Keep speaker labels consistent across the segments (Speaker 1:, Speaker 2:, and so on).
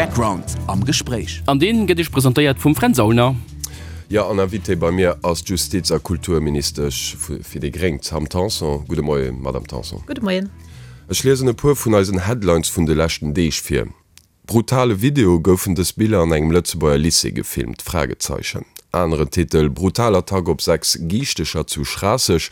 Speaker 1: Background am Gespréich.
Speaker 2: An deen gëtt iech presentéiert vum Fränz Aulner.
Speaker 3: Jo, an Invitée bei mir ass d'Justiz a Kulturministesch fir déi gréng, d'Sam Tanson. Gudde Moien, Madame Tanson.
Speaker 4: Gudde Moien.
Speaker 3: Ech liesen e puer vun eisen Headlines vun de leschten Deeg vir. Brutale Video, Goufen dës Biller an engem Lëtzebuerger Lycée gefilmt? Fragezeichen. Aneren Titel, Brutal Attack op 6 Giichtecher zu Schraasseg.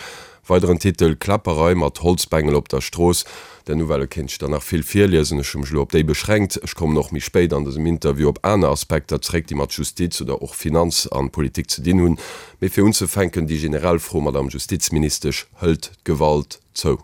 Speaker 3: Weideren Titel, Kläpperei mat Holzbengel op der Strooss. Der Nouvelle kéint ech der nach vill virliesen, ech hu mech elo op déi beschränkt. Ech kommen och méi spéit an dësem Interview op aner Aspekter zréck, déi mat Justiz oder och Finanz an Politik ze dinn hunn. Mee fir unzefänken déi generell Fro, Madame Justizministesch, Hëlt d'Gewalt zou?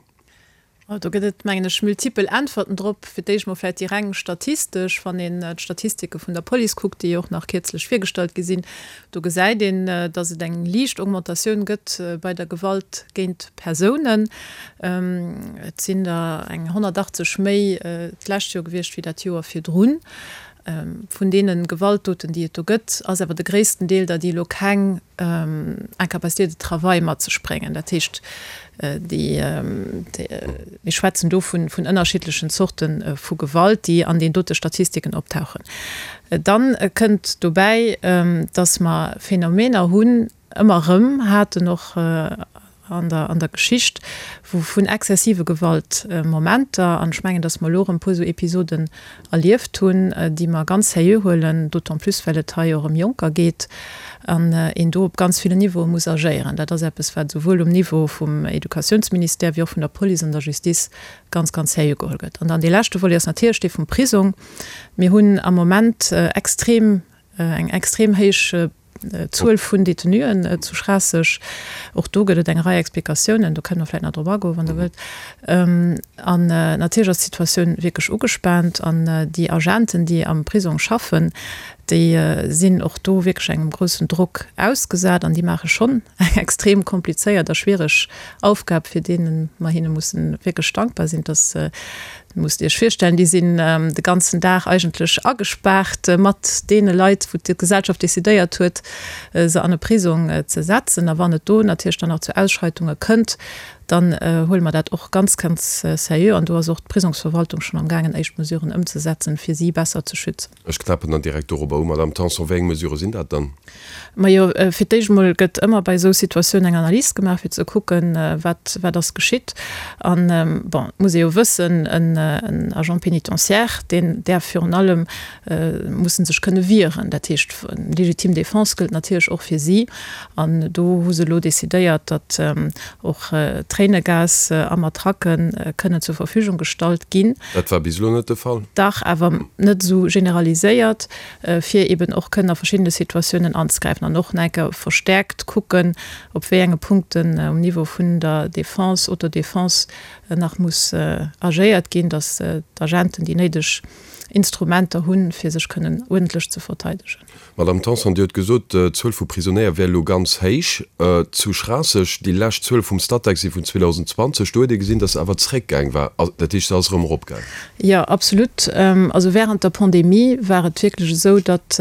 Speaker 4: Do gëtt et, mengen ech, multipel Äntwerten drop. Fir d'éischt mol vläicht déi reng statistesch. Wann een d'Statistike vun der Police kuckt, déi jo och nach kierzlech virgestallt gi sinn, do gesäit een, datt et eng liicht Augmentatioun gëtt bei der Gewalt géint Persounen. Et sinn der eng 180 méi d'lescht Joer gewiescht wéi dat Joer virdrun. Vun deene Gewaltdoten, déi et do gëtt, ass awer de gréissten Deel der, déi elo keng Incapacité de travail mat sech bréngen. Dat heescht, déi, mir schwätzen do vun ënnerschiddlechen Zorte vu Gewalt, déi an deenen dote Statistiken optauchen. Dann kënnt dobäi, dass mer Phänomener hunn, ëmmer erëm haten, och an der, an der Geschicht, wou vun exzessive Gewaltmomenter, an ech mengen, dass mer elo erëm e puer esou Episoden erlieft hunn, déi mer ganz sérieux huelen, d'autant plus well et hei och ëm Jonker geet an een do op ganz villen Niveaue muss agéieren. Dat ass eppes, wat esouwuel um Niveau vum Educatiounsministère wéi och vun der Police an der Justice ganz, ganz sérieux geholl gëtt. An dann dee leschte Volet ass natierlech dee vum Prisong. Mir hunn am Moment extrem, eng extrem héich Zuel vun Detenuen zu Schraasseg. Och do gëtt et eng Rei Explikatiounen, do kënne mer vläicht nach drop agoen, wann Der wëllt. An natierlech ass d'Situatioun wierklech ugespaant an déi Agenten, déi am Prisong schaffen, déi sinn och do wierklech engem groussen Drock ausgesat an déi maache schonn eng extrem komplizéiert a schwiereg Aufgab, fir deene mer hinne mussen wierklech dankbar sinn, dass Musst Iech virstellen, déi sinn de ganzen Dag eigentlech agespaart mat deene Leit, wou d'Gesellschaft decidéiert huet, se an e Prisong ze setzen. A wann et do natierlech dann nach zu Ausschreitunge kënnt, dann huele mer dat och ganz, ganz seriö. An do ass och d'Prisongsverwaltung schonn am gaangen, éischt Mesuren ëmzesetzen, fir si besser ze schützen.
Speaker 3: Ech knäppen dann direkt dorobber u, Madamm Tanson. Wéi eng Mesurë sinn dat dann?
Speaker 4: Majo, fir d'éischt emol gëtt ëmmer bei esou Situatiounen eng Analys gemaach, fir ze kucken, wat, wat ass geschitt. An, bon, et muss ee jo wëssen, en Agent pénitentiaire, deen däerf virun allem, muss en sech kënne wieren. Dat heescht, légitime défense gëllt natierlech och fir si. An do hu se elo decidéiert, datt och Tréinegas a Matraquë kënnen zur Verfügung gestallt ginn.
Speaker 3: Dat war bis elo net de Fall?
Speaker 4: Dach, awer net esou generaliséiert. fir eben och kënnen a verschiddene Situatiounen anzegräifen an och nach eng Kéier verstärkt kucken, op wéi enge Punkten um Niveau vun der Défense, Autodéfense nach muss agéiert ginn, dass d'Agenten déi néideg Instrumenter hunn, fir sech kënnen uerdentlech ze verteidegen.
Speaker 3: Madame Tanson, Dir hutt gesot, d'Zuel vu Prisonéier wär elo ganz héich zu Schraasseg. Déi lescht Zuele vum Statec si vun 2020. Do huet ee gesinn, dass se awer zréckgaang war. Dat heescht, se ass erëm eropgaang.
Speaker 4: Jo, absolut. Also während der Pandemie war et wierklech esou, datt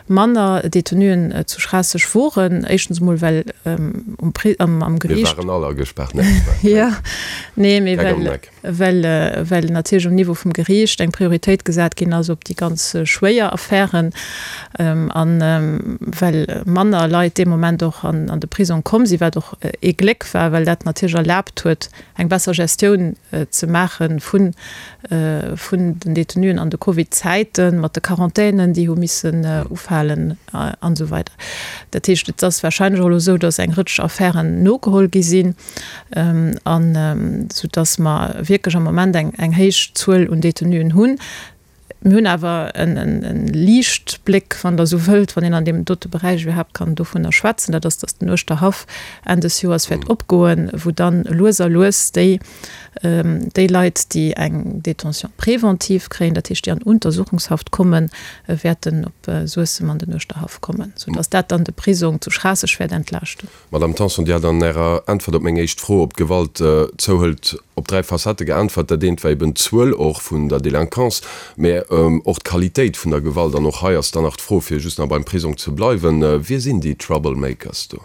Speaker 4: manner Detenuen zu Schraasseg woren. Éischtens emol, well um Pri-, am, am Geriicht.
Speaker 3: Mir waren all agespaart, ne?
Speaker 4: Jo, nee, mee well, well, well natierlech um Niveau vum Geriicht eng Prioritéit gesat ginn ass op déi ganz schwéier Affären an well manner Leit dee Moment och an, an de Prisong komm sinn, wat och ee Gléck war, well dat natierlech erlaabt huet, eng besser Gestioun ze maache vun den Detenuen an de Covid-Zäiten, mat de Quarantänen, déi hu missen ufalen an esou weider. Dat heescht, et ass warscheinlech och elo esou, datt eng Rëtsch Affären nogeholl gi sinn, an soudatt mer wierklech am Moment eng héich Zuel un Detenuen hunn. Mir hunn awer e Liichtbléck, wann Der esou wëllt, wann een an deem dote Beräich iwwerhaapt kann dovunner schwätzen, dat ass, datt den Uerschterhaff Enn des Joers wäert opgoen, wou dann lues a lues déi, déi Leit, déi eng Détention préventive kréien, dat heescht déi an Untersuchungshaft kommen, wäerten op Suessem an den Uerschterhaff kommen, soudatt dat dann de Prisong zu Schraasseg wäert entlaaschten.
Speaker 3: Madame Tanson, Dir hat an Ärer Äntwert op meng éischt Fro, ob d'Gewalt zouhëlt, op 3 Facettë geäntwert. Dat eent war eben d'Zuel och vun der Délinquance, mä och d'Qualitéit vun der Gewalt. An och hei ass dann nach d'Fro, fir just nach beim Prisong ze bleiwen, Wie sinn déi Troublemakers do?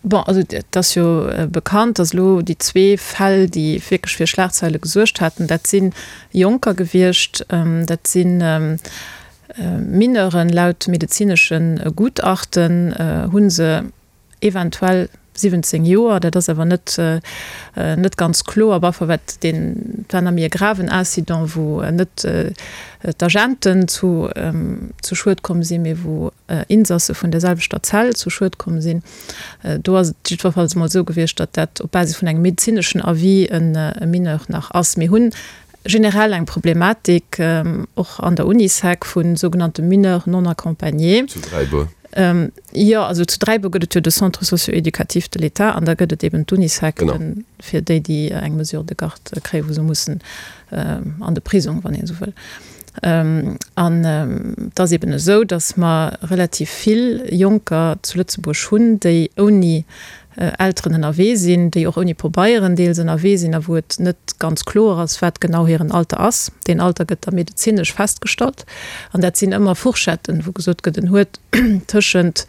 Speaker 4: Bon, also et ass jo bekannt, datt elo déi zwee Fäll, déi wierklech fir Schlagzeile gesuergt haten, dat si Jonker gewiescht, dat si Mineuren. Laut medezinesche Gutachten hu se eventuell 17 Joer, dat ass awer net net ganz kloer. Op alle Fall wat deen, et war nach méi e graven Incident, wou net d'Agenten zu zu Schued komm sinn, mee wou Insasse vun der selwechter Zell zu Schued komm sinn. Do ass et jiddwerfalls emol esou gewiescht, datt dat op Basis vun engem medezineschen Avis e Mineur nach ass. Mir hunn generell eng Problematik och an der Unisec vu sougenannte Mineurs non accompagnés.
Speaker 3: Zu Dräibuer?
Speaker 4: Jo, also zu Dräibuer gëtt et jo de Centre socio-éducatif de l'État an da gëtt et eben d'Unisec fir déi, déi eng Mesure de garde kréien, wou se mussen an de Prisong, wann een esou wëll. An et ass eben esou, datt mer relativ vill Jonker zu Lëtzebuerg hunn, déi ouni Elteren ënnerwee sinn, déi och ouni Pobeieren deels ënnerwee sinn a wou et net ganz kloer ass, wat genau hiren Alter ass. Deen Alter gëtt da medezinesch festgestallt an dat sinn ëmmer Fourchetten, wou gesot gëtt, en huet tëschent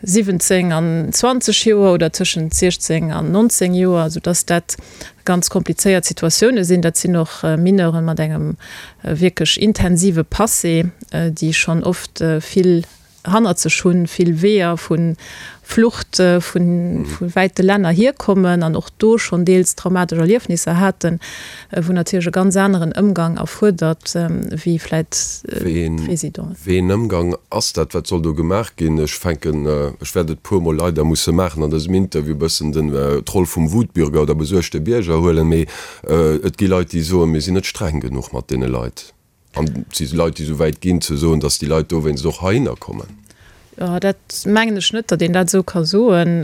Speaker 4: 17 an 20 Joer oder tëschent 16 an 19 Joer, soudass dat ganz komplizéiert Situatioune sinn. Dat sinn och Mineuren mat engem wierklech intensive Passé, déi schonn oft vill hannert sech hunn, vill Weeër vu Flucht vu wäite Länner hierkommen an och do schonn deels traumatesch Erliefnisser haten, wou natierlech e ganz aneren Ëmgang erfuerdert wéi vläit
Speaker 3: d'Residenten. Wéi een Ëmgang ass dat? Wat soll do gemaach ginn? Ech fänken, ech wäert et puermol leider musse maachen an dësem Interview, e bëssen den d'Roll vum Wutbürger oder besuergte Bierger huelen, mee et gi Leit, déi soen, mir sinn net streng genuch mat deene Leit. An et si Leit, déi esou wäit ginn, ze soen, datt déi Leit dowéinst och heihinner kommen.
Speaker 4: Jo, dat mengen ech net, datt een dat esou ka soen,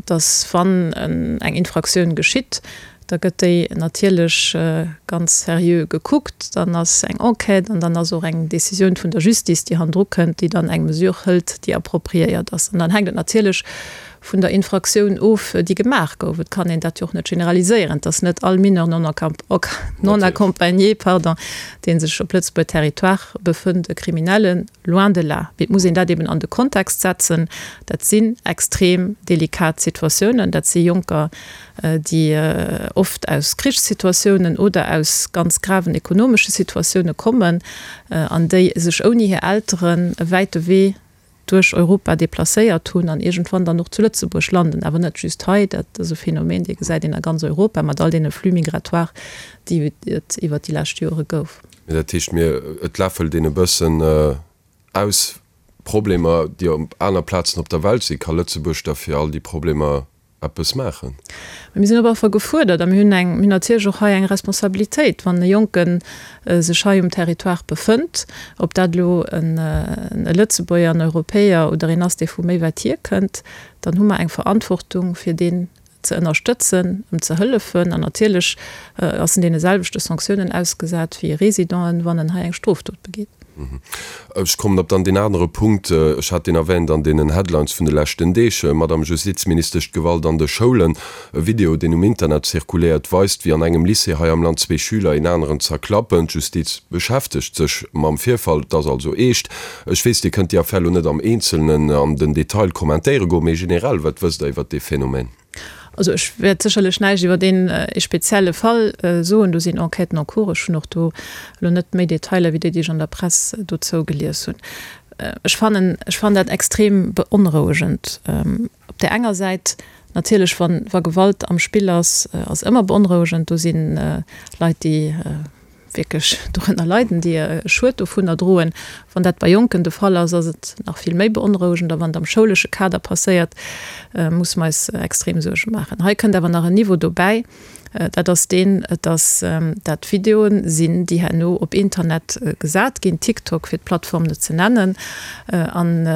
Speaker 4: datt wann eng Infraktioun geschitt, da gëtt déi natierlech ganz seriö gekuckt, dann ass eng Enquête an dann ass och eng Décisioun vun der Justice, déi hannendru kënnt, déi dann eng Mesure hëlt, déi appropriéiert ass. An dann hänkt et natierlech vun der Infraktioun of, déi gemaach gouf. Et kann een dat jo och net generaliséieren. Et ass net all Mineur non accompagné, pardon, dee sech op Lëtzebuerger Territoire befënnt, e Kriminellen, loin de là. Mee et muss een dat eben an de Kontext setzen. Dat sinn extrem delikat Situatiounen. Dat si Jonker, déi oft aus Krichssituatiounen oder aus ganz graven ekonomesche Situatioune kommen an déi sech ouni hir Elteren e wäite Wee duerch Europa deplacéiert hunn an iergendwann dann och zu Lëtzebuerg landen, awer net just hei, dat ass e Phänomen, dee gesäit een a ganz Europa mat all deene Flux migratoires, déi et iwwert déi lescht Jore gouf.
Speaker 3: Mee dat heescht, mir, et läffelt een e bëssen aus Problemer, déi op aner Plazen op der Welt sinn. Ka Lëtzebuerg da fir all déi Problemer eppes maachen.
Speaker 4: Mir sinn op alle Fall gefuerdert a mir hunn eng, mir hunn natierlech och hei eng Responsabilitéit, wann e Jonke sech hei um Territoire befënnt, ob dat elo e Lëtzebuerger, en Europäer oder een ass, dee vu méi wäit hierkënnt, dann hu mer eng Verantwortung, fir deen ze ënnerstëtzen, em ze hëllefen. An natierlech ass en deene selwechte Sanktiounen ausgesat wéi e Résident, wann en hei eng Strofdot begeet.
Speaker 3: Ech kommen op dann deen anere Punkt, ech hat deen erwähnt an deenen Headlines vun de leschten Deeg, Madame Justizministesch, d'Gewalt an de Schoulen. E Video, deen um Internet zirkuléiert, weist, wéi an engem Lycée hei am Land zwee Schüler een aneren zerklappen. D'Justiz beschäftegt sech mam Virfall, et ass also eescht. Ech weess, Dir kënnt déi Affär elo net am Eenzelnen an den Detail kommentéiere goen, mee generell, wat wësst Der iwwert dee Phänomen?
Speaker 4: Also ech wäert sécherlech näischt iwwer deen ee spezielle Fall soen. Do sinn Enquêten en cours. Ech hunn och do elo net méi Detailer wéi déi, déi ech an der Press dozou gelies hunn. Ech fannen, ech fannen dat extrem beonrouegend. Op där enger Säit natierlech, wann, wa Gewalt am Spill ass, ass ëmmer beonrouegend. Do si Leit, déi wierklech dorënner leiden, déi e Schued dovunner droen. Wann dat bei Jonken de Fall ass, ass et nach vill méi beonrouegend. A wann et am schoulesche Kader passéiert, musse mer eis extrem Suerge maachen. Hei kënnt awer nach en Niveau dobäi, dat ass deen, dass dat Videoen sinn, déi herno op Internet gesat ginn, TikTok fir d'Plattform net ze nennen, an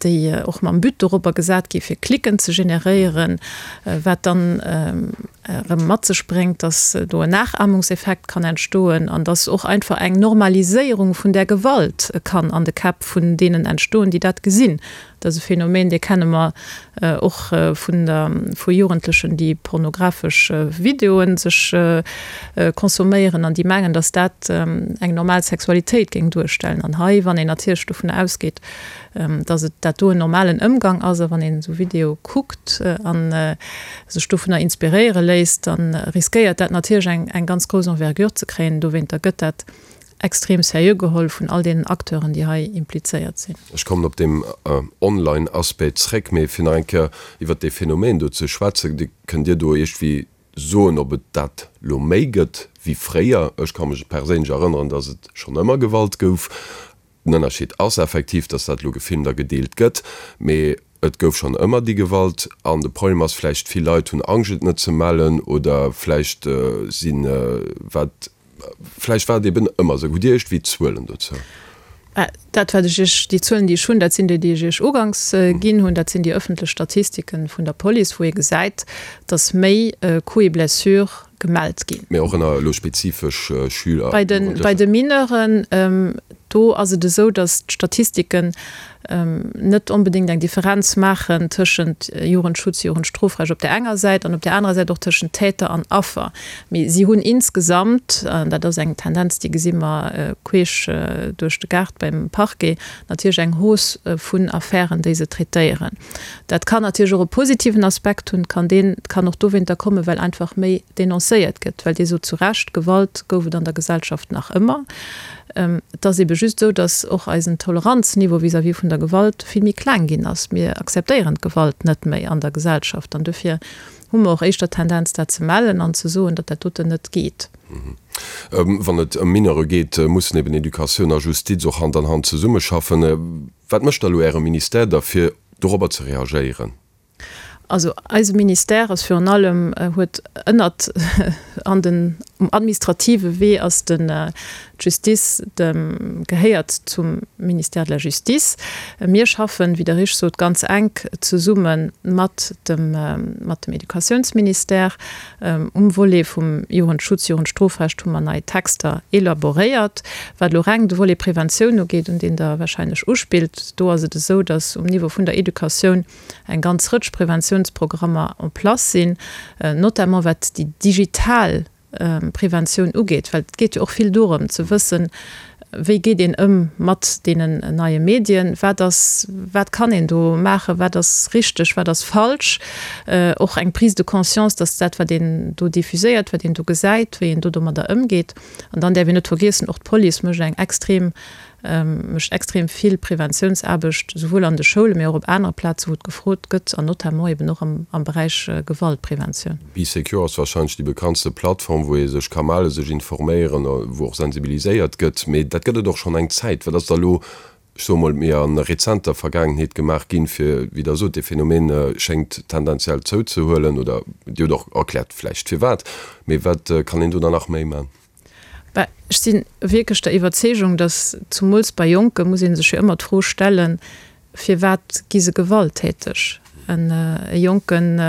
Speaker 4: déi och mam But dorobber gesat gi fir Klicken ze generéieren, wat dann. Erëm mat sech bréngt, dass do en Nachahmungseffekt kann entstoen an dass och einfach eng Normaliséierung vun där Gewalt kann an de Käpp vun deenen entstoen, déi dat gesinn. Dat ass e Phänomen, dee kenne mer och vun der, vu Jugendlechen, déi pornografesch Videoe sech consomméieren an déi mengen, dass dat eng normal Sexualitéit géing duerstellen. An hei, wann een natierlech dovun ausgeet, dass et dat do en normalen Ëmgang ass a wann een esou Videoe kuckt a sech dovunner inspiréiere léisst, da riskéiert dat natierlech eng eng ganz grouss Envergure ze kréien. Dowéinter gëtt dat extrem seriö geholl vun all deenen Acteuren, déi hei implizéiert sinn.
Speaker 3: Ech kommen op deem Online-Aspect zréck, mee fir nach eng Kéier iwwert dee Phänomen do ze schwätzen, Kënnt Dir do iergendwéi soen, ob et dat lo méi gëtt wéi fréier? Ech ka mech perséinlech erënneren, dass et schonn ëmmer Gewalt gouf. Den Ënnerscheed ass effektiv, dass dat elo gefilmt a gedeelt gëtt, mee et gouf schonn ëmmer déi Gewalt. An de Problem ass vläicht, vill Leit hunn Angscht et net ze mellen oder vläicht sinn, wat, vläicht war et eben ëmmer esou. Hutt Dir iergendwéi Zuelen dozou?
Speaker 4: Dat wat ech Iech, déi Zuelen déi ech hunn, dat sinn déi, déi ech Iech uganks ginn hunn. Dat sinn déi ëffentlech Statistiken vun der Police, wou ee gesäit, dass méi Coups et blessures gemellt ginn.
Speaker 3: Mee och ënner elo spezifesch Schüler,
Speaker 4: Bei de, bei de Mineuren, do ass et esou, datt d'Statistiken net onbedéngt eng Differenz maachen tëschent Jugendschutz, Jugendstrofrecht op där enger Säit an op där anerer Säit och tëschent Täter an Affer. Mee si hunn insgesamt, an dat ass eng Tendenz, déi gesi mer queesch duerch de Gaart beim Parquet, natierlech eng Hausse vun Affären, déi se traitéieren. Dat kann natierlech och e positiven Aspekt hunn, kann deen, kann och dowéinter kommen, well einfach méi denoncéiert gëtt, well Dir sot zu Recht, Gewalt gouf et an der Gesellschaft nach ëmmer. Et ass ebe just esou, datt och eisen Toleranzniveau vis-à-vis vun der Gewalt vill méi kleng ginn ass. Mir akzeptéieren d'Gewalt net méi an der Gesellschaft an dofir hu mer och éischter d'Tendenz, dat ze mellen an ze soen, datt dat doten net geet.
Speaker 3: Wann et ëm Mineure geet, mussen eben Educatioun a Justiz och Hand an Hand zesummeschaffen. Wat mécht da elo Äre Ministère da fir dorobber ze reagéieren?
Speaker 4: Also eise Ministère ass virun allem, huet ënnert an den, um administrative Wee ass den, d'Justice dem, gehéiert zum Ministère de la Justice. Mir schaffen, wéi Der richteg sot, ganz enk zesumme mat dem, mat dem Educatiounsministère. Um Volet vum Jugendschutz, Jugendstrofrecht hu mer nei Texter elaboréiert. Wat elo reng de Volet Preventioun ugeet, un deen Der wahrscheinlech uspillt, do ass et esou, dass um Niveau vun der Educatioun eng ganz Rëtsch Preventiounsprogrammer en place sinn, notamment wat déi digital Preventioun ugeet, well et geet jo och vill dorëm ze wëssen, wéi geet een ëm mat deenen neie Medien, wat ass, wat kann een do maachen, wat ass richteg, wat ass falsch, och eng Prise de conscience, dass dat wat een do diffuséiert, wat een do gesäit, wéi een do domadder ëmgeet. An dann däerf een net vergiessen, och d'Police mécht eng extrem mécht extrem vill Preventiounsaarbecht, souwuel an de Schoulen, mee och op anere Plazen, wou et gefrot gëtt, an notamment eben och am Beräich Gewaltpreventioun.
Speaker 3: Bee Secure ass warscheinlech déi bekanntste Plattform, wou ee sech ka mellen, sech informéieren, wou och sensibiliséiert gëtt. Mee dat gëtt et och schonn eng Zäit. Wat ass da elo, ech soe mol, méi a rezenter Vergaangenheet gemaach ginn, fir, wéi Der sot, dee Phänomen schéngt tendenziell zouzehuelen, oder Dir hutt och erkläert vläicht firwat, mee wat kann een do dann nach méi man?
Speaker 4: Bah, ech si wierklech der Iwwerzeegung, datt zumools bei Jonke muss ee sech jo ëmmer d'Fro stellen, Firwat gi se gewalttäteg? E Jonken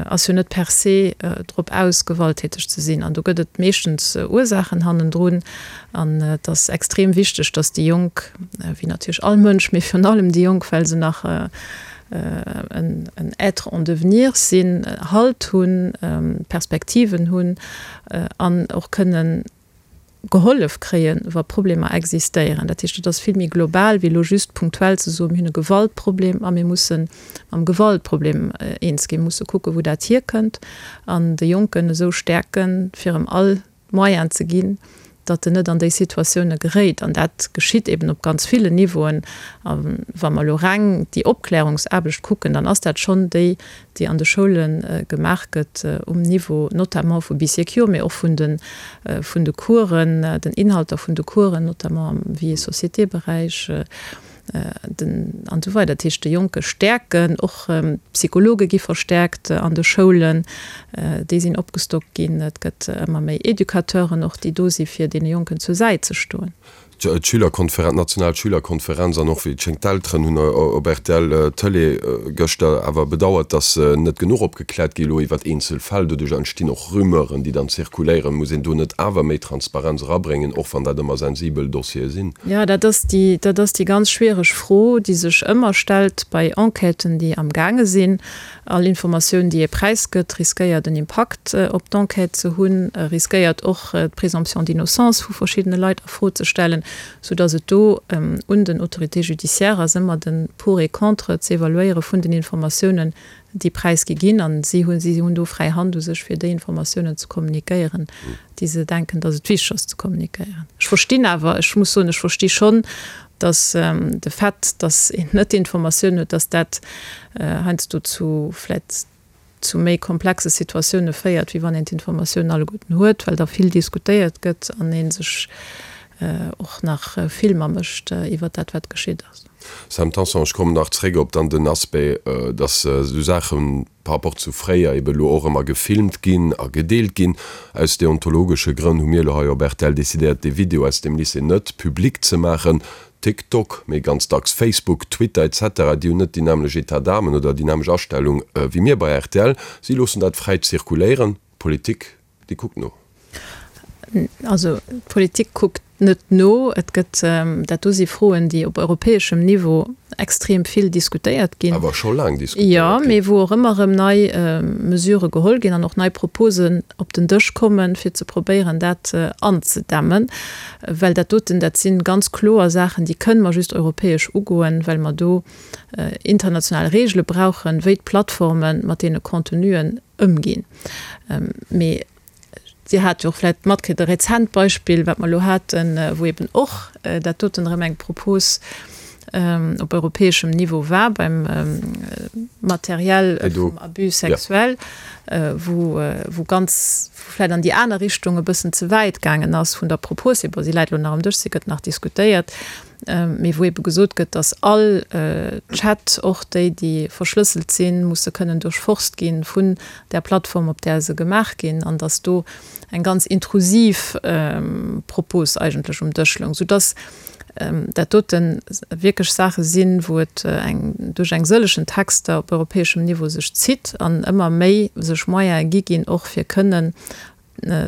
Speaker 4: ass jo net per se drop aus, gewalttäteg ze sinn. An do gëtt et meeschtens Ursaachen hannendrun. An et ass extrem wichteg, datt déi Jonk, wéi natierlech all Mënsch, mee virun allem déi Jonk, well se nach en Être en devenir sinn, Halt hunn, Perspektiven hunn an och kënnen gehollef kréien, wa Problemer existéieren. Dat heescht, et ass vill méi global wéi elo just punktuell ze soen, mir hunn e Gewaltproblem a mir musse mam Gewaltproblem eens ginn, musse kucken, wou dat hierkënnt an de Jonken esou stäerken, fir em all d'Moyenen ze ginn, datt en net an déi Situatioune geréit. An dat geschitt eben op ganz villen Niveauen. A wa mer elo reng déi Opklärungsaarbecht kucken, dann ass dat schonn déi, déi an de Schoule gemaach gëtt um Niveau notamment vu Bee-Secure, mee och vun de vun de Coursen, den Inhalter vun de Coursen, notamment am Vie et société-Beräich. Den, an esou weider. Dat heescht, de Jonke stäerken, och d'Psychologe gi verstäerkt an de Schoulen, déi sinn opgestockt ginn. Et gëtt ëmmer méi Educateuren och, déi do si fir deene Jonken zur Säit ze stoen.
Speaker 3: D'Schülerkonferenz, d'national Schülerkonferenz an och wéi et schéngt d'Elteren hunn op rtl Tëlee gëschter awer bedauert, datt net genuch opgekläert gi elo iwwert eenzel Fäll. Doduerch entstinn och Rumeuren, déi dann zirkuléieren. Muss een do net awer méi Transparenz erabréngen, och wann dat ëmmer sensibel Dossiere sinn?
Speaker 4: Jo, dat ass déi, dat ass déi ganz schwiereg Fro, déi sech ëmmer stellt bei Enquêten, déi amgaange sinn. All Informatioun, déi ee präisgëtt, riskéiert en Impakt op d'Enquête ze hunn, riskéiert och d'Présomption d'innocence vu verschiddene Leit a Fro ze stellen, soudass et do un den Autorités judiciaires ass, ëmmer de Pour et contre z'evaluéiere vun den Informatiounen, déi präisgi ginn. A si hunn, si hunn do fräi Hand u sech, fir déi Informatiounen ze kommunikéieren, déi se denken, dass et wichteg ass ze kommunikéieren. Ech verstinn awer, ech muss soen, ech versti schonn, dass de Fait, dass een net d'Informatioun huet, dass dat heiansdo zu vläicht zu méi komplexe Situatioune féiert, wéi wann een d'Informatiounen alleguerten huet, well da vill diskutéiert gëtt an ee sech och nach Filmer mécht iwwer dat, wat geschitt ass.
Speaker 3: Sam Tanson, Ech kommen nach zréck op dann den Aspect, dass esou Saachen, par rapport zu fréier eben elo och ëmmer gefilmt ginn a gedeelt ginn. Aus deontologesche Grënn hu mir elo hei op rtl decidéiert, dee Video aus dem Lycée net public ze maachen. TikTok, mee ganz dacks Facebook, Twitter etc, déi hunn net déi nämmlech État d'âme oder déi nämmlech Astellung wéi mir bei rtl. Si loossen dat fräi zirkuléieren. D'Politik Déi kuckt no.
Speaker 4: Also d'Politik kuckt net no. Et gëtt, dat do si Froen, déi op europäeschem Niveau extrem vill diskutéiert ginn.
Speaker 3: Awer scho laang diskutéiert ginn.
Speaker 4: Jo, mee wou och ëmmer erëm nei Mesurë geholl ginn an och nei Proposen op den Dësch kommen, fir ze probéieren, dat anzedämmen. Well dat doten, dat si ganz kloer Saachen, déi kënne mer just europäesch ugoen, well mer do international Regele brauchen, wéi d'Plattforme mat deene Contenuen ëmginn. Mee Dir hat jo och vläicht matkritt, e rezent Beispill, wat mer elo haten, wou eben och dat doten erëm eng Propos op europäeschem Niveau war beim Matériel vum Abus sexuel, wou, wou ganz, wou vläicht an déi aner Richtung e bëssen ze wäit gaangen ass vun der Propos hier. Bon, si läit elo nach am Dësch, si gëtt nach diskutéiert. Mee wou ebe gesot gëtt, datt all Chat, och déi, déi verschlësselt sinn, musse kënnen duerchforst gi vun där Plattform, op där se gemaach ginn, an datt do eng ganz intrusiv Propos eigentlech um Dësch loung, soudatt dat dote wierklech Saache sinn, wou et eng duerch eng sëllegen Texter op europäeschem Niveau sech zitt an ëmmer méi sech Moyene gi ginn, och fir kënnen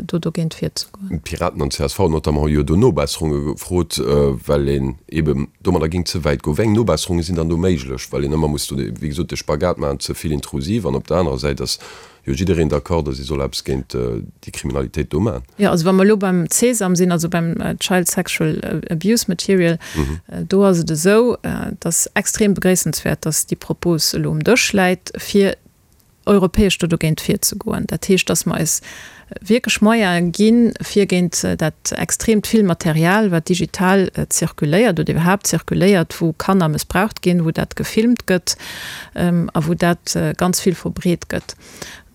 Speaker 4: do dogéint virzegoen.
Speaker 3: D'Piraten an csv notamment hu jo do Nobesserunge gefrot, well een eeben domadder géing ze wäit goen. Wéi eng Nobesserunge sinn dann do méiglech? Well een ëmmer muss do, wéi gesot, de Spagat maachen, ze vill intrusiv an op der anerer Säit ass jo jiddereen d'accord, datt ee soll eppes géint déi Kriminalitéit do maachen.
Speaker 4: Jo, also wa mer elo beim CSAM sinn, also beim Child Sexual Abuse Material, do ass et esou, et ass extrem begréissenswäert, datt déi Propos elo um Dësch läit, fir europäesch do dogéint virzegoen. Dat heescht, dass mer eis wierklech Moyene ginn, fir géint dat extreemt vill Material, wat digital zirkuléiert oder iwwerhaapt zirkuléiert, wou Kanner mëssbraucht ginn, wou dat gefilmt gëtt a wou dat ganz vill verbreet gëtt.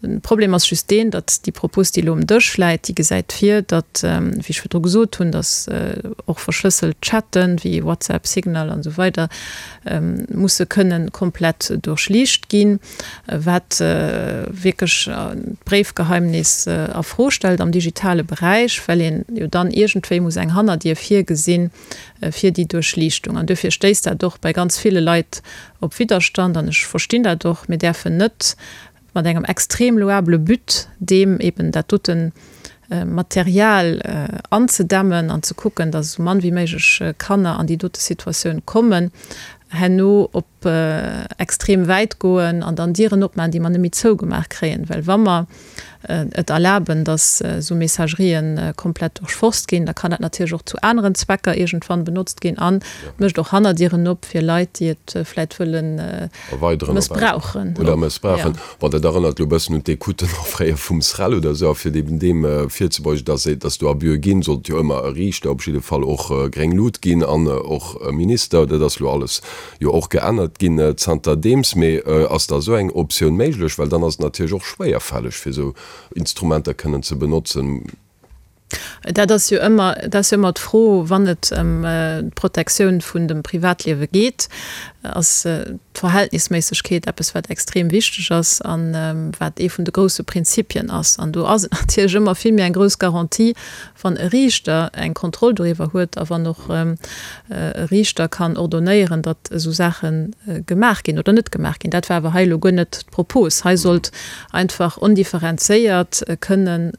Speaker 4: De Problem ass just deen, datt déi Propos, déi elo um Dësch läit, déi gesäit vir, datt, wéi ech virdru gesot hunn, datt och verschlësselt Chatten, wéi WhatsApp, Signal an esou weider, musse kënnen komplett duerchliicht ginn, wat wierklech d'Bréifgeheimnis a Fro stellt am digitale Beräich, well een jo dann iergendwéi muss eng Hannerdier virgesinn fir déi Duerchliichtung. An duerfir stéisst dat och bei ganz ville Leit op Widderstand an ech verstinn dat och. Mir däerfen net mat engem extrem louable But, deem eben dat dote Material anzedämmen an ze kucken, datt esou mann wéi méiglech Kanner an déi dote Situatioun kommen, herno op extrem wäit goen an dann Dieren opmaachen, déi mer net méi zougemaach kréien. Well wa mer et erlaben, datt esou Messagerien komplett duerchforst ginn, da kann dat natierlech och zu aneren Zwecker iergendwann benotzt ginn an mécht och Hannerdieren op fir Leit, déi et vläit wëllen mëssbrauchen.
Speaker 3: Oder mëssbrauchen. Bon, dat erënnert elo e bëssen un d'Ecouten och fréier vum SREL oder esou. A fir eben deem virzebeugen, datt et, datt do Abüe ginn, sollt jo ëmmer e Riichter op jidde Fall och gréng Lut ginn an och e Minister. Dat ass elo alles jo och geännert ginn zanterdeems. Mee ass da esou eng Optioun méiglech? Well dann ass et natierlech och schwéierfälleg, fir esou Instrumenter kënnen ze benotzen.
Speaker 4: Dat ass jo ëmmer, dat ass jo ëmmer d'Fro, wann et ëm d'Protektioun vun dem Privatliewe geet. ass d'Verhältnisméissegkeet eppes, wat extrem wichteg ass a wat ee vun de grousse Prinzipien ass. An do ass et natierlech ëmmer vill méi eng grouss Garantie, wann e Riichter eng Kontroll doriwwer huet a wann och e Riichter kann ordonnéieren, datt esou Saache gemaach ginn oder net gemaach ginn. Dat war awer hei elo guer net d'Propos. Hei sollt einfach ondifferenzéiert kënnen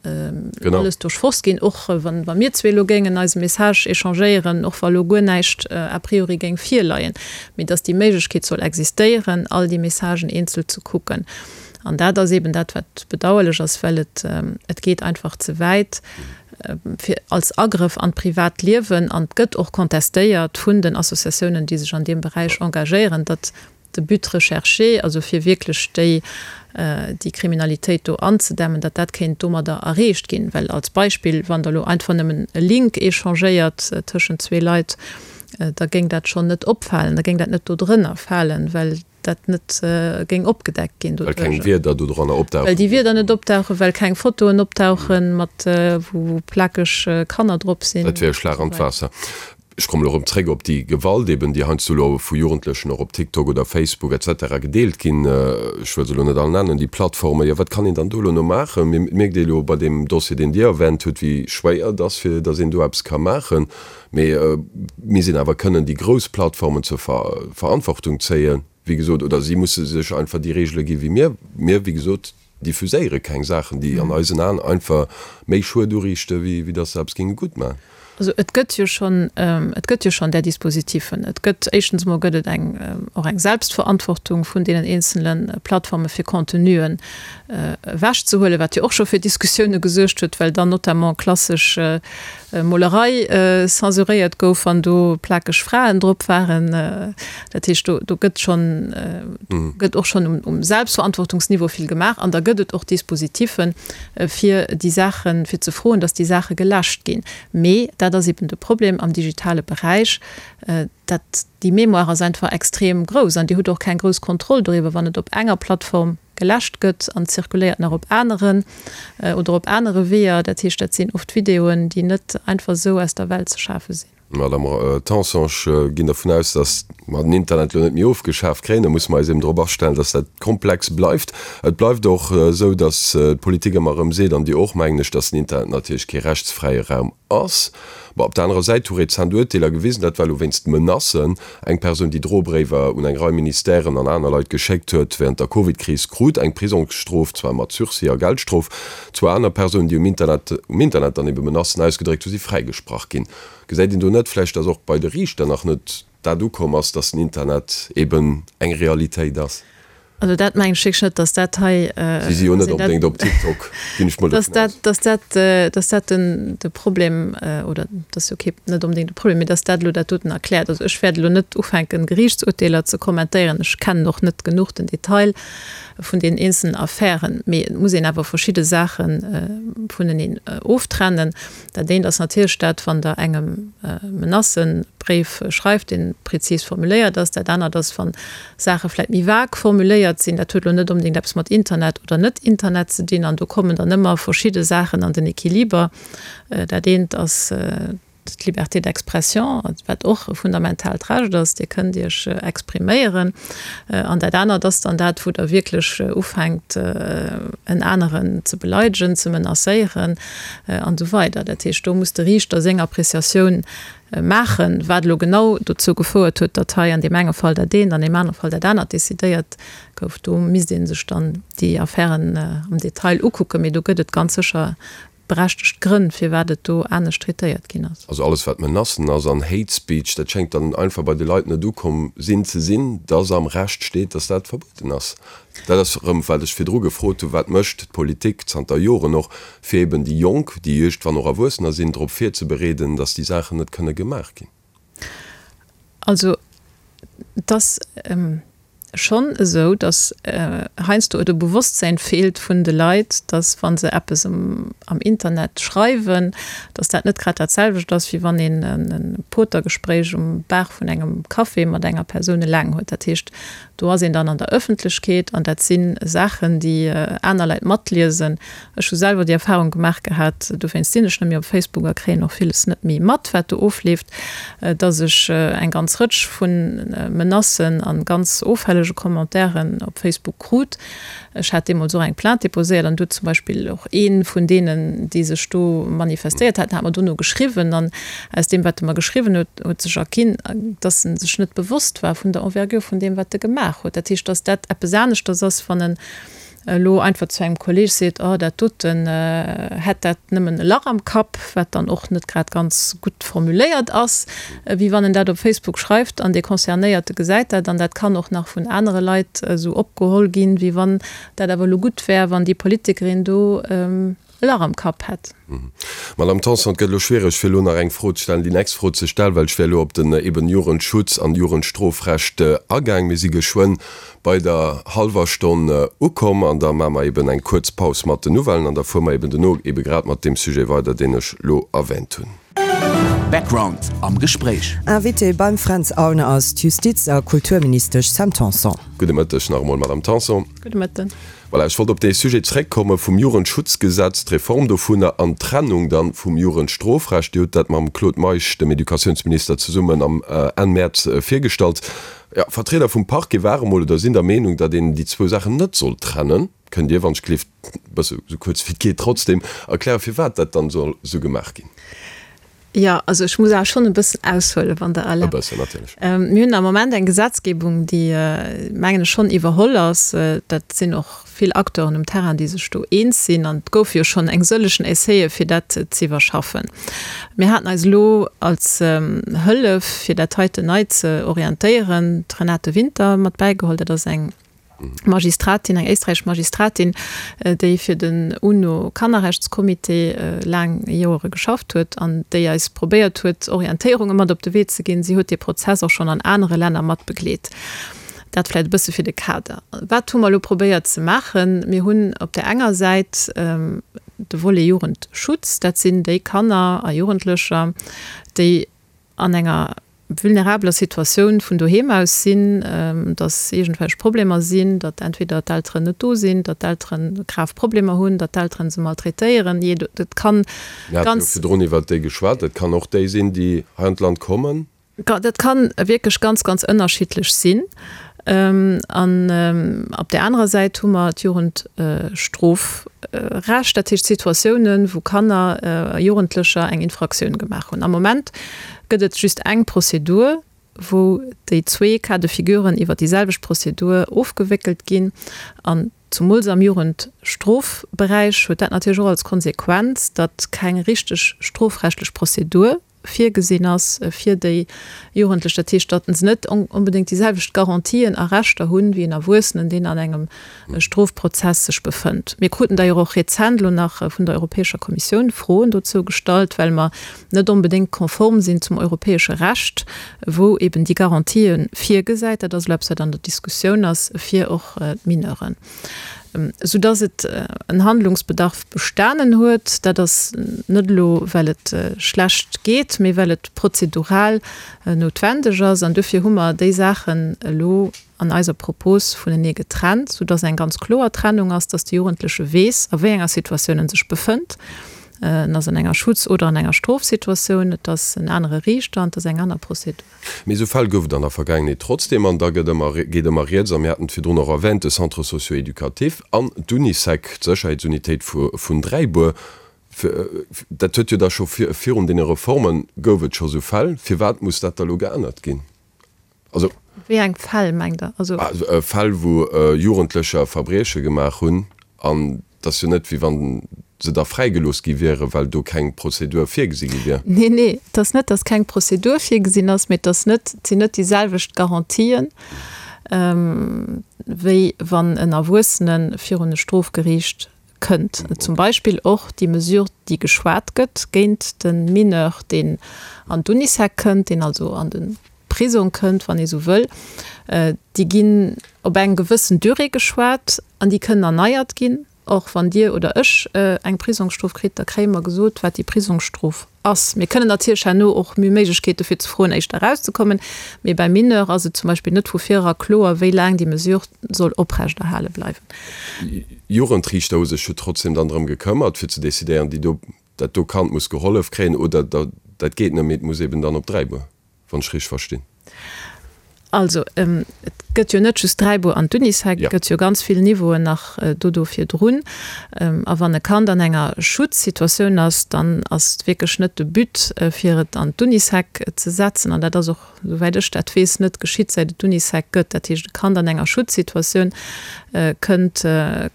Speaker 4: alles duerchforst ginn, och wa mir zwee elo géingen eise Message échangéieren, och wa elo guer näischt a priori géing virleien, mee datt déi Méiglechkeet soll existéieren, all déi Messagen eenzel ze kucken. An dat ass eeben dat, wat bedauerlech ass, well et, et geet einfach ze wäit fir als Agrëff an d'privat Liewen. An et gëtt och contestéiert vun den Associatiounen, déi sech an deem Beräich engagéieren, datt de But recherché, also fir wierklech déi, déi Kriminalitéit do anzedämmen, datt dat kéint domadder erreecht ginn. Well als Beispill, wann Der elo einfach nëmmen e Link échangéiert tëschent zwee Leit, da géing dat schonn net opfalen, da géing dat net dodrënner falen, well dat net géing opgedeckt ginn
Speaker 3: doduerjer. Well keng Wierder dodranner opdauchen.
Speaker 4: Well déi Wierder net opdauchen, well keng Fotoen opdauchen, mat wou plakeg Kanner drop sinn.
Speaker 3: Dat wier e Schlag an d'Waasser. Ech kommen elo erëm zréck op déi Gewalt eben, déi heiansdo elo vu Jugendlechen och op TikTok oder Facebook et cetera gedeelt ginn. Ech wëll se elo net all nennen, déi Plattformen. Jo, wat kann een dann do elo no maachen? Mir mierkt ee elo bei deem Dossier, deen Dir erwänt hutt, wéi schwéier et ass, fir datt een do eppes ka maachen. Mee mir sinn awer kënnen déi grouss Plattformen zur Verantwortung zéien, wéi gesot, oder si musse sech einfach déi Regele gi wéi mir. Mir, wéi gesot, diffuséiere keng Saachen, déi an eisen Aen einfach méi Schued uriichte wéi datt se eppes géinge gutt maachen.
Speaker 4: Also et gëtt jo schonn, et gëtt jo schonn där Dispositifen. Et gëtt, éischtens emol gëtt et eng, och eng Selbstverantwortung vun deenen eenzele Plattforme fir Contenuen ewechzehuelen, wat jo och scho fir Diskussioune gesuergt huet, well dann notamment klassesch Molerei censuréiert gouf, wann do plakeg Fraen drop waren. Dat heescht, do, do gëtt schonn, gëtt och schonn um, um Selbstverantwortungsniveau vill gemaach an da gëtt et och Dispositiffen, fir déi Saachen, fir ze froen, datt déi Saache geläscht ginn. Mee dat ass eben de Problem am digitale Beräich, dat déi Mémoire ass einfach extrem grouss an Dir hutt och keng grouss Kontroll doriwwer, wann et op enger Plattform geläscht gëtt an zirkuléiert nach op aneren oder op anere Weeër. Dat heescht, dat sinn oft Videoen, déi net einfach esou aus der Welt ze schafe sinn.
Speaker 3: Madame Tanson, ech ginn dervun aus, datt mer den Internet elo net méi ofgeschaf kréien. Da musse mer eis eben drop astellen, datt dat komplex bleift. Et bleift och esou, datt d'Politik ëmmer erëm seet, an Dir och, mengen ech, datt den Internet natierlech kee rechtsfräie Raum ass. Bon, op der anerer Säit hu rezent Urteeler gewisen, dat war elo wéinst Menacen, eng Persoun, déi Drobréiwer un eng Rei Ministèren an aner Leit geschéckt huet wärend der Covid-Kris, krut eng Prisongsstrof, zwar mat Sursis a Geldstrof. Zwou aner Persounen, déi um Internet um Internet dann ebe Menacen ausgedréckt hu, si fräigesprach ginn. Gesäit een do net vläicht, datt och bei de Riichter nach net dat ukomm ass, datt den Internet eben eng Realitéit ass?
Speaker 4: Also dat mengen ech wierklech net, datt dat hei.
Speaker 3: Si si jo net onbedéngt op TikTok, ginn ech mol
Speaker 4: dovun aus. Datt dat, datt dat den, de Problem, oder dat ass jo kee, net onbedéngt de Problem, mee datt dat elo dat doten erkläert. Also ech wäert elo net ufänken, Geriichtsurteeler ze kommentéieren. Ech kennen och net genuch den Detail vun deenen eenzelen Affären. Mee et muss een awer verschidde Saache vuneneen oftrennen. Dat eent ass natierlech dat, wann Der engem Menacëbréif schreift, dee prezis formuléiert ass. Dat anert ass, wa Saache vläicht méi vag formuléiert sinn. Dat huet elo net onbedéngt eppes mat Internet oder net Internet ze dinn. An do kommen dann ëmmer verschidde Saachen an den Equiliber. Dat eent ass d'Liberté d'expression, wat och e fundamentaalt Recht ass. Dir kënnt Iech expriméieren. An dat anert ass dann dat, wou Der wierklech ufänkt, en aneren ze beleidegen, ze menacéieren an esou weider. Dat heescht, do muss de Riichter seng Appréciatioun maachen, wat elo genau dozou gefouert huet, datt hei an deem enge Fall dat eent, an deem anere Fall dat anert decidéiert gouf. Do misst ee sech dann déi Affären am Detail ukucken, mee do gëtt et ganz sécher berechtegt Grënn, firwat et do anescht traitéiert ginn ass.
Speaker 3: Also alles wat Menacen ass an Hate Speech, dat schéngt dann einfach bei de Leit net ukomm sinn ze sinn, dass am Recht steet, dass dat verbueden ass. Dat ass erëm wat ech virdru gefrot hunn, wat mécht d'Politik zanter Joren och, fir eben déi Jonk, déi iergendwann och Erwuessener sinn, drop virzebereeden, dass déi Saachen net kënne gemaach ginn?
Speaker 4: Also et ass schonn esou, datt heiansdo et u Bewosstsäin feelt vun de Leit, datt wa se eppes am Internet schreiwen, datt dat net grad dat selwecht ass, wéi wann een e Potergespréich um Bar vun engem Café mat enger Persoun eleng huet. Dat heescht, Do ass een dann an der Ëffentlechkeet an dat si Saachen, déi aner Leit matliesen. Ech hu selwer déi Erfahrung gemaach gehat, dowéinst sinn ech net méi op Facebook a kréien och villes net méi mat, wat do ofleeft, dass ech eng ganz Rëtsch vu Menacen a ganz offällege Commentairen op Facebook krut. Ech hat deemools och eng Plainte déposéiert an do huet zum Beispill och ee vun deenen, déi sech do manifestéiert haten, hat mer dono geschriwwen an aus deem, wat e mer geschriwwen huet, huet sech erginn, dass en sech net bewosst war vun der Envergure vun deem, wat e gemaach huet. Dat heescht, dass dat eppes aneschters ass, wann en elo einfach zu engem Kolleg seet, oh dat doten, hätt dat nëmmen e Lach am Kapp, wat dann och net grad ganz gutt formuléiert ass, wéi wann en dat op Facebook schreift an dee Concernéierte gesäit dat an dat kann och nach vun anere Leit esou opgeholl ginn, wéi wann dat awer elo gutt wär, wann déi Politikerin do e Lach am Kapp hätt.
Speaker 3: Madame Tanson, et gëtt elo schwiereg, fir elo nach eng Fro ze stellen, déi nächst Fro ze stellen, well ech wär elo op den eben Jugendschutz an Jugendstrofrecht agaang. Mir si geschwënn bei der hallwer Stonn ukomm an da maache mer eben eng kuerz Paus mat den Nouvellen an da fuere mer eben dono eben grad mat deem Sujet weider, deen ech elo erwähnt hunn.
Speaker 1: Background am Gespréich.
Speaker 5: Invité beim Fränz Aulner ass d'Justiz a Kulturministesch Sam Tanson.
Speaker 3: Gudde Mëtteg nach emol, Madame Tanson.
Speaker 4: Gudde Mëtten.
Speaker 3: Voilà, ech wollt op dee Sujet zréckkomme vum Jugendschutzgesetz, d'Reform dovunner an d'Trennung dann vum Jugendstrofrecht. Dir hutt dat mam Claude Meisch, dem Educatiounsminister, zesummen am Enn Mäerz virgestallt. Jo, Vertrieder vum Parquet ware mol oder sinn der Meenung, datt een déi zwou Saachen net sollt trennen. Kënnt Dir, wann ech gelift, e bësse sou kuerz wéi et geet, trotzdem erklären, firwat dat dann soll sou gemaach ginn?
Speaker 4: Jo, also ech muss awer schonn e bëssen aushuelen, wann Der erlaabt.
Speaker 3: E bëssen, natierlech.
Speaker 4: Mir hunn am Moment eng Gesetzgebung, déi, mengen ech, schonn iwwerholl ass. Dat sinn och vill Acteuren um Terrain, déi sech do eens sinn. An et goufe jo schonn eng sëllegen Essaie fir dat ze iwwerschaffen. Mir haten eis elo als Hëllef, fir dat heiten nei ze orientéieren, d'Renate Winter mat bäigeholl. Dat ass eng Magistratin, eng éisträichesch Magistratin, déi fir den UNO-Kannerrechtscomité laang Joere geschafft huet an déi eis probéiert huet, Orientéierunge mat op de Wee ze ginn. Si huet dee Prozess och schonn an anere Länner mat begleet. Dat vläicht e bësse fir de Kader. Wat hu mer elo probéiert ze maachen? Mir hunn op där enger Säit de Volet Jugendschutz. Dat sinn déi Kanner a Jugendlecher, déi an enger vulnerabeler Situatioun vun doheem aus sinn, datt iergendwelch Problemer sinn, datt entweder d'Elteren net do sinn, datt d'Elteren grav Problemer hunn, datt d'Elteren se maltraitéieren, jee, dat kann
Speaker 3: Mir hate jo
Speaker 4: ganz.
Speaker 3: virdrun iwwert déi geschwat. Dat kann och déi sinn, déi hei an d'Land kommen.
Speaker 4: Dat kann wierklech ganz, ganz ënnerschiddlech sinn. An op där anerer Säit hu mer d'Jugendstrofrecht, dat heescht Situatiounen, wou Kanner a Jugendlecher eng Infraktioun gemaach hunn. Am Moment gëtt et just eng Prozedur, wou déi zwee Cas de figuren iwwer déi selwecht Prozedur ofgewéckelt ginn. An zumools am Jugendstrofberäich huet dat natierlech och als Konsequenz, datt keng richteg strofrechtlech Prozedur virgesinn ass fir déi Jugendlech, dat heescht, datt se net onbedéngt déi selwecht Garantien a Rechter hunn, wéi en Erwuessenen, deen an engem Strofprozess sech befënnt. Mir kruten d'ailleurs och rezent elo nach vun der Europäescher Kommissioun Froen dozou gestallt, well mer net onbedéngt konform sinn zum europäesche Recht, wou eben déi Garantië virgesäit. Dat ass elo eppes, wat an der Diskussioun ass fir och d'Mineuren. Soudass et en Handlungsbedarf bestanen huet. Dat ass net elo, well et schlecht geet, mee well et prozedural noutwendeg ass. An dofir hu mer déi Saachen elo an eiser Propos vunenee getrennt, soudass eng ganz kloer Trennung ass, dass de Jugendleche weess, a wéi enger Situatioun en sech befënnt. En ass an enger Schutz oder an enger Strofsituatioun, et ass en anere Riichter an et ass eng aner Prozedur.
Speaker 3: Mee esou Fäll gouf et an der Vergaangenheet trotzdem, an da gëtt ëmmer, geet ëmmer rieds, a mir haten et virdrun och erwähnt, de Centre socio-éducatif an d'Unisec, d'Sécherheetsunitéit vun Dräibuer, dat huet jo da scho virun deene Reforme gouf et scho esou Fäll. Firwat muss dat da elo geännert ginn?
Speaker 4: Also. Wéi eng Fäll mengt Der?
Speaker 3: Also. Fäll, wou Jugendlecher Verbrieche gemaach hunn an et ass jo net, wéi wa se da fräigelooss gi wieren, well do keng Prozedur virgesi gi wier.
Speaker 4: Nee, nee, et ass net, datt keng Prozedur virgesinn ass, mee et ass net, et sinn net déi selwecht Garantien, wéi wann en Erwuessene virun e Strofgeriicht kënnt. Zum Beispill och déi Mesure, déi geschwat gëtt géint de Mineur, deen an d'Unisec kënnt, deen also an de Prisong kënnt, wann ee sou wëll, déi ginn op eng gewëssen Durée geschwat an déi kënnen erneiert ginn. Och wann Dir oder ech eng Prisongsstrof kritt, da kréie mer gesot, wat déi Prisongsstrof ass. Mir kënnen natierlech herno och, mir hu Méiglechkeete fir ze froen, éischter erauszekommen, mee beim Mineur ass et zum Beispill net vu virera kloer, wéi laang déi Mesure soll oprechterhale bleiwen.
Speaker 3: Jugendriichter hu sech jo trotzdem dann drëm gekëmmert, fir ze decidéieren, déi do, dat do Kand muss gehollef kréien oder dat geet net méi, et muss eben dann op Dräibuer. wann ech richteg verstinn.
Speaker 4: Also, et gëtt jo net just Dräibuer an d'Unisec, et gëtt jo ganz vill Niveauen nach do do virdrun. A wann e Kand an enger Schutzsituatioun ass, dann ass et wierklech net de But, fir et an d'Unisec ze setzen. An dat ass och, souwäit ech dat weess, net geschitt, säit et d'Unisec gëtt. Dat heescht, e Kand an enger Schutzsituatioun kënnt,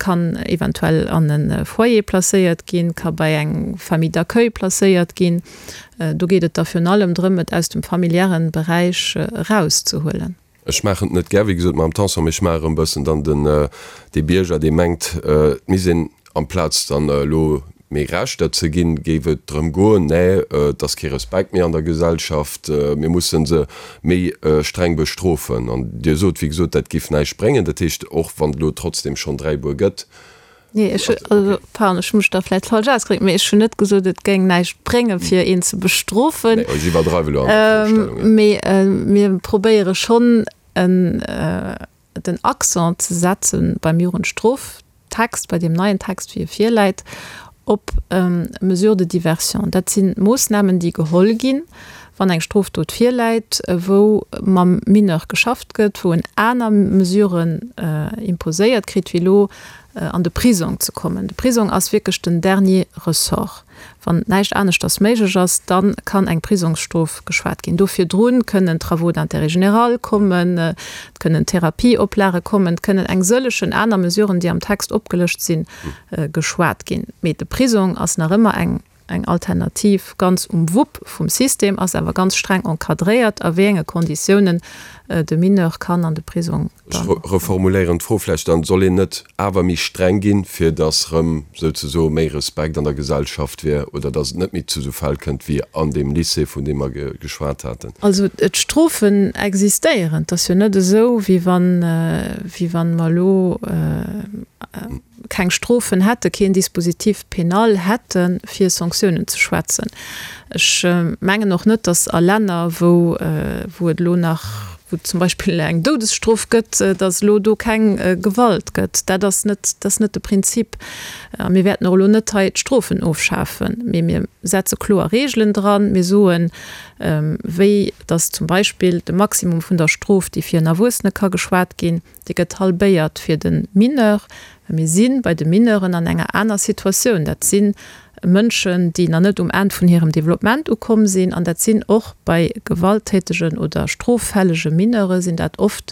Speaker 4: kann eventuell an e Foyer placéiert ginn, ka bei eng Famille d'accueil placéiert ginn. Do geet et da virun allem drëm, et aus dem familiären Beräich erauszehuelen.
Speaker 3: Ech maachen et net gär, wéi gesot, Madame Tanson, mee ech maache erëm e bëssen dann den, dee Bierger, dee mengt, et misst een, amplaz dann elo méi Rechter ze ginn, géif et drëm goen, nee, et ass kee Respekt méi an der Gesellschaft, mir musse se méi streng bestrofen. An Dir sot, wéi gesot, dat géif näischt bréngen. Dat heescht, och wann et elo trotzdem schonn Dräibuer gëtt,
Speaker 4: Nee, ech hu, also, pardon, ech hu mech da vläicht falsch ausgedréckt, mee ech hunn net gesot, et géing näischt bréngen, fir een ze bestrofen.
Speaker 3: Nee, ech iwwerdreiwe elo an der Virstellung,
Speaker 4: jo. Mee mir probéiere schonn, en, den Accent ze setze beim Jugendstroftext, bei deem neien Text, wéi e virläit, op Mesures de diversion. Dat si Moossnamen, déi geholl ginn, wann eng Strofdot virläit, wou mam Mineur geschafft gëtt, wou en aner Mesuren imposéiert kritt, wéi elo an de Prisong ze kommen. De Prisong ass wierklech den dernier ressort. Wann näischt aneschters méiglech ass, da kann eng Prisongsstrof geschwat ginn. Do virdru kënnen Travaux d'intérêt général kommen, et kënnen Therapieoplage kommen, et kënnen eng sëllegen aner Mesuren, déi am Text opgelëscht sinn, geschwat ginn. Mee de Prisong ass nach ëmmer eng eng Alternativ ganz um Wupp vum System, ass awer ganz streng encadréiert, a wéi enge Konditiounen de Mineur kann an de Prisong
Speaker 3: Ech reformuléieren d'Fro vläicht dann, Soll een net awer méi streng ginn, fir datt erëm souzesoe méi Respekt an der Gesellschaft wier oder datt et net méi zu esou Fäll kënnt wéi an deem Lycée, vun deem mer geschwat haten?
Speaker 4: Also d'Strofen existéieren. Et ass jo net esou, wéi wann, wéi wann mer elo keng Strofen hätten, keen Dispositif pénal hätten, fir Sanktiounen ze schwätzen. Ech mengen och net, datt a Länner, wou, wou et elo nach, wou et zum Beispill eng Doudesstrof gëtt, datt elo do keng Gewalt gëtt. Dat ass net, dat ass net de Prinzip. A mir wäerten och elo net hei d'Strofen ofschafen, mee mir setze kloer Regeln dran. Mir soen, wéi datt zum Beispill de Maximum vun der Strof, déi fir en Erwuessene ka geschwat ginn, Dee gëtt halbéiert fir de Mineur. Well mir si bei de Mineuren an enger aner Situatioun. Dat si Mënschen, déi nach net um Enn vun hirem Developpement ukomm sinn. An dat sinn och bei gewalttätegen oder stroffällege Mineure sinn dat oft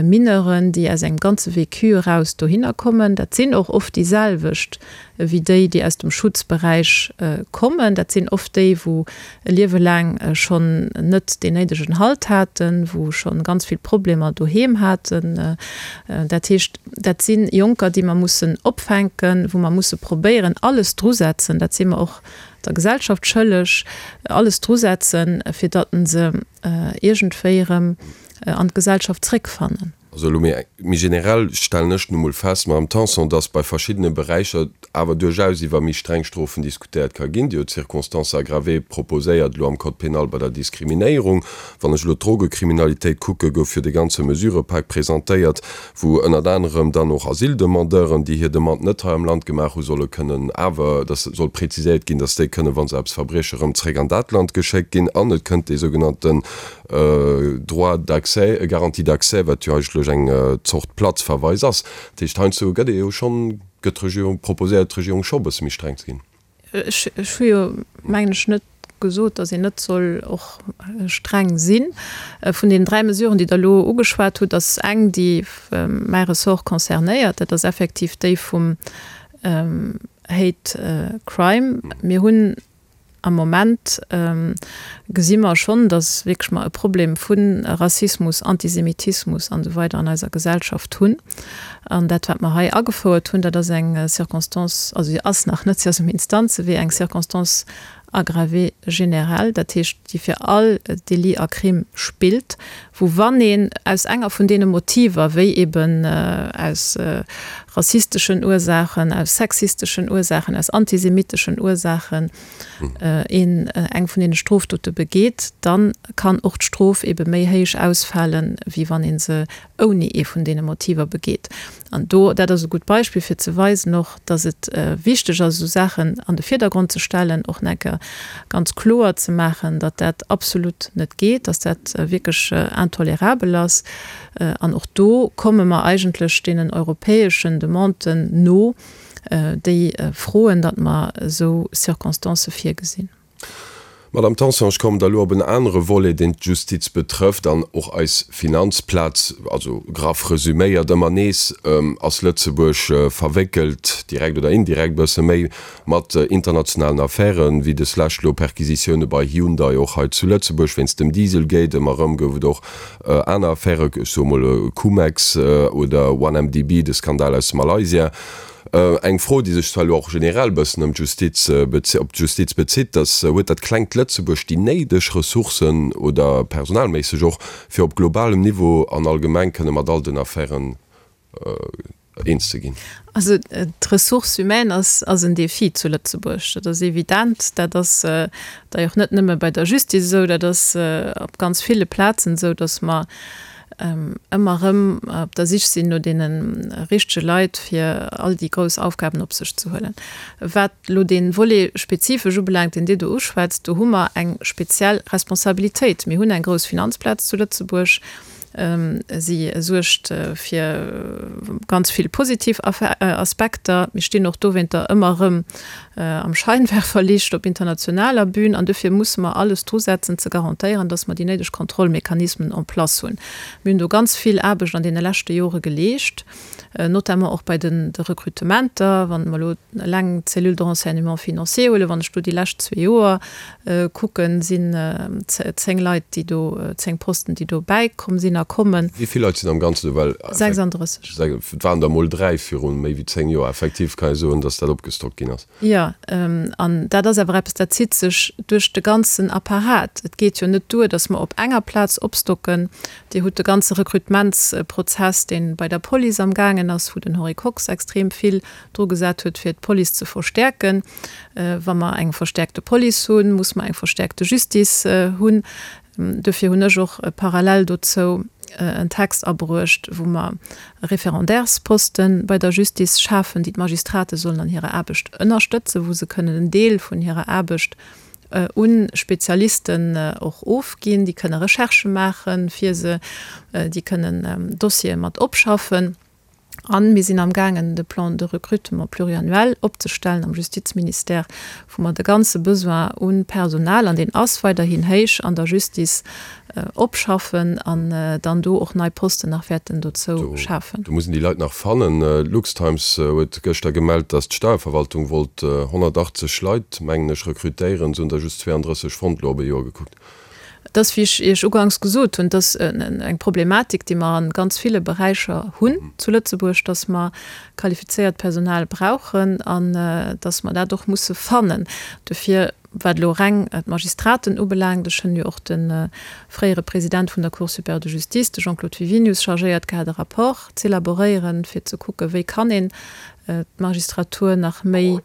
Speaker 4: Mineuren, déi aus engem ganze Vécu eraus dohinner kommen. Dat sinn och oft déi selwecht wéi déi, déi aus dem Schutzberäich kommen. Dat sinn oft déi, wou e Liewe laang schonn net deen néidegen Halt haten, wou schonn ganz vill Problemer doheem haten. Dat heescht, dat si Jonker, déi mer mussen opfänken, wou mer musse probéieren, alles drusetzen, dat si mer och der Gesellschaft schëlleg, alles drusetzen, fir datt se iergendwéi erëm an d'Gesellschaft zréckfannen.
Speaker 3: Also elo méi méi generell stellen ech nu mol fest, Madame Tanson, dass bei verschiddene Beräicher awer duerchaus iwwer méi streng Strofen diskutéiert ka ginn. Dir hutt d'Circonstances aggravées proposéiert elo am Code pénal bei der Diskriminéierung. Wann ech elo d'Drogekriminalitéit kucken, gouf jo de ganze Mesurëpak presentéiert, wou ënnert anerem dann och Asyldemandeuren, déi hir Demande net hei am Land gemaach hu solle kënnen awer, dass soll präziséiert ginn, dass déi kënnen, wa se eppes verbriechen, erëm zréck an dat Land geschéckt ginn. An et kënnt dee sougenannten Droit d'accès, Garantie d'accès, wat jo eigentlech eng Zort Platzverweis ass. Dat heescht, heiansdo gëtt ee jo schonn, gëtt d'Regierung, proposéiert d'Regierung scho e bësse méi streng ze ginn.
Speaker 4: Ech hu jo, mengen ech, net gesot, datt een net soll och streng sinn. Vun deenen 3 Mesuren, déi Der elo ugeschwat hutt, ass eng, déi mäi Ressort concernéiert, dat ass effektiv déi vum Hate Crime. Mir hunn Am Moment gesi mer schonn, datt wierklech mer e Problem vu Rassismus, Antisemitismus an esou weider an eiser Gesellschaft hunn. An dat, wat mer hei agefouert hunn, dat ass eng Circonstance, also si ass nach net, si ass um Instanzewee, eng Circonstance aggravée générale, dat heescht, déi fir all Délit a Crime spillt, wou wann een aus enger vun deene Motiver, wéi eben aus. rassisteschen Ursaachen, aus sexisteschen Ursaachen, aus antisemitteschen Ursaachen een eng vun deene Strofdote begeet, dann kann och d'Strof ebe méi héich ausfalen, wéi wann ee se ouni ee vun deene Motiver begeet. An do, dat ass e gutt Beispill fir ze weisen och, dass et wichteg ass, esou Saachen an de Virdergrond ze stellen, och nach eng Kéier ganz kloer ze maachen, datt dat absolut net geet, datt dat wierklech intolerabel ass. An och do komme mer eigentlech deenen europäeschen Demanden no, déi froen, datt mer esou Circonstancë virgesinn.
Speaker 3: Madame Tanson, ech kommen da elo op en anere Volet, deen d'Justiz betrëfft an och eis Finanzplaz. Also graff resüméiert, ëmmer nees ass Lëtzebuerg verwéckelt, direkt oder indirekt e bësse méi, mat internationalen Affären, wéi deslescht elo Perquisitioune bei Hyundai och hei zu Lëtzebuerg wéinst dem Dieselgate. Ëmmer erëm gouf et och aner Affären, ech soe mol Cum-Ex oder OneMDB, de Skandal aus Malaysia. Eng Fro, déi sech zwar elo och generell e bëssen ëm d'Justiz, op d'Justiz bezitt, dass, Huet dat klengt Lëtzebuerg déi néideg Ressourcen oder personalméisseg och, fir op globalem Niveau an allgemeng kënne mat all den Affären eens ze ginn?
Speaker 4: Also d'Ressource humaine ass, ass en Défi zu Lëtzebuerg, dat ass evident. Dat ass d'ailleurs net nëmme bei der Justiz esou, dat ass op ganz ville Plazen esou, dass mer ëmmer erëm op der Sich sinn no deene richtege Leit, fir all déi grouss Aufgaben op sech ze huelen. Wat elo dee Volet spezifesch ubelaangt, deen Dir do uschwätzt, do hu mer eng speziell Responsabilitéit. Mir hunn eng grouss Finanzplaz zu Lëtzebuerg. Si suergt fir ganz vill positiv Aspekter. Mir stinn och dowéinter ëmmer erëm am Scheinwerferlicht op internationaler Bühn an dofir musse mer alles drusetzen ze garantéieren, dass mer déi néideg Kontrollmechanismen en place hunn. Mir hunn do ganz vill Aarbecht an deene leschte Jore geleescht, notamment och bei de Rekrutementer. Wann mer elo eleng d'Cellule de renseignement financier huelen, wann ech do déi lescht zwee Joer kucken, sinn 10 Leit, déi do, 10 Posten, déi do bäikomm sinn a kommen.
Speaker 3: Wéi vill Leit sinn am Ganzen do? Well
Speaker 4: 36.
Speaker 3: Et waren der emol 3 viru méi wéi 10 Joer. Effektiv kann ee soen, datt dat opgestockt ginn ass.
Speaker 4: Jo, an dat ass awer eppes, dat zitt sech duerch de ganzen Apparat. Et geet jo net duer, datt mer op enger Plaz opstocken. Dir hutt de ganze Rekrutementsprozess, dee bei der Police amgaangen ass, wou den Henri Kox extrem vill dru gesat huet, fir d'Police ze verstäerken. Wa mer eng verstäerkte Police hunn, muss mer eng verstäerkte Justice hunn. Dofir hunn ech och parallel dozou en Text abruecht, wou mer Référendaires-Poste bei der Justice schafen, déi d'Magistrate sollen an hirer Aarbecht ënnerstëtzen, wou se kënnen en Deel vun hirer Aarbecht u Spezialisten och ofginn. Déi kënne Recherchë maache fir se, déi kënnen Dossiere mat opschaffen. A mir sinn amgaangen, de Plan de recrutement pluriannuel opzestellen am Justizministère, wou mer de ganze Besoin u Personal, an deen ass weiderhin héich an der Justice, opschaffen an dann do och nei Posten nach wäerten dozou schafen.
Speaker 3: Do muss een déi Leit nach fannen. D'Luxtimes huet gëschter gemellt, datt d'Steierverwaltung wollt 180 Leit, mengen ech, rekrutéieren. Se hunn der just 32 fonnt, elo op e Joer gekuckt.
Speaker 4: Et ass, wéi ech Iech uganks gesot hunn, et ass eng Problematik, déi mer a ganz ville Beräicher hunn zu Lëtzebuerg, dass mer qualifizéiert Personal brauchen an dass mer dat och musse fannen. Dofir, wat elo reng d'Magistraten ubelaangt, ech hunn jo och de fréiere President vun der Cour supérieure de justice, de Jean-Claude Wiwinius, chargéiert gehat, e Rapport z'élaboréieren, fir ze kucken, wéi kann een d'Magistratur nach méi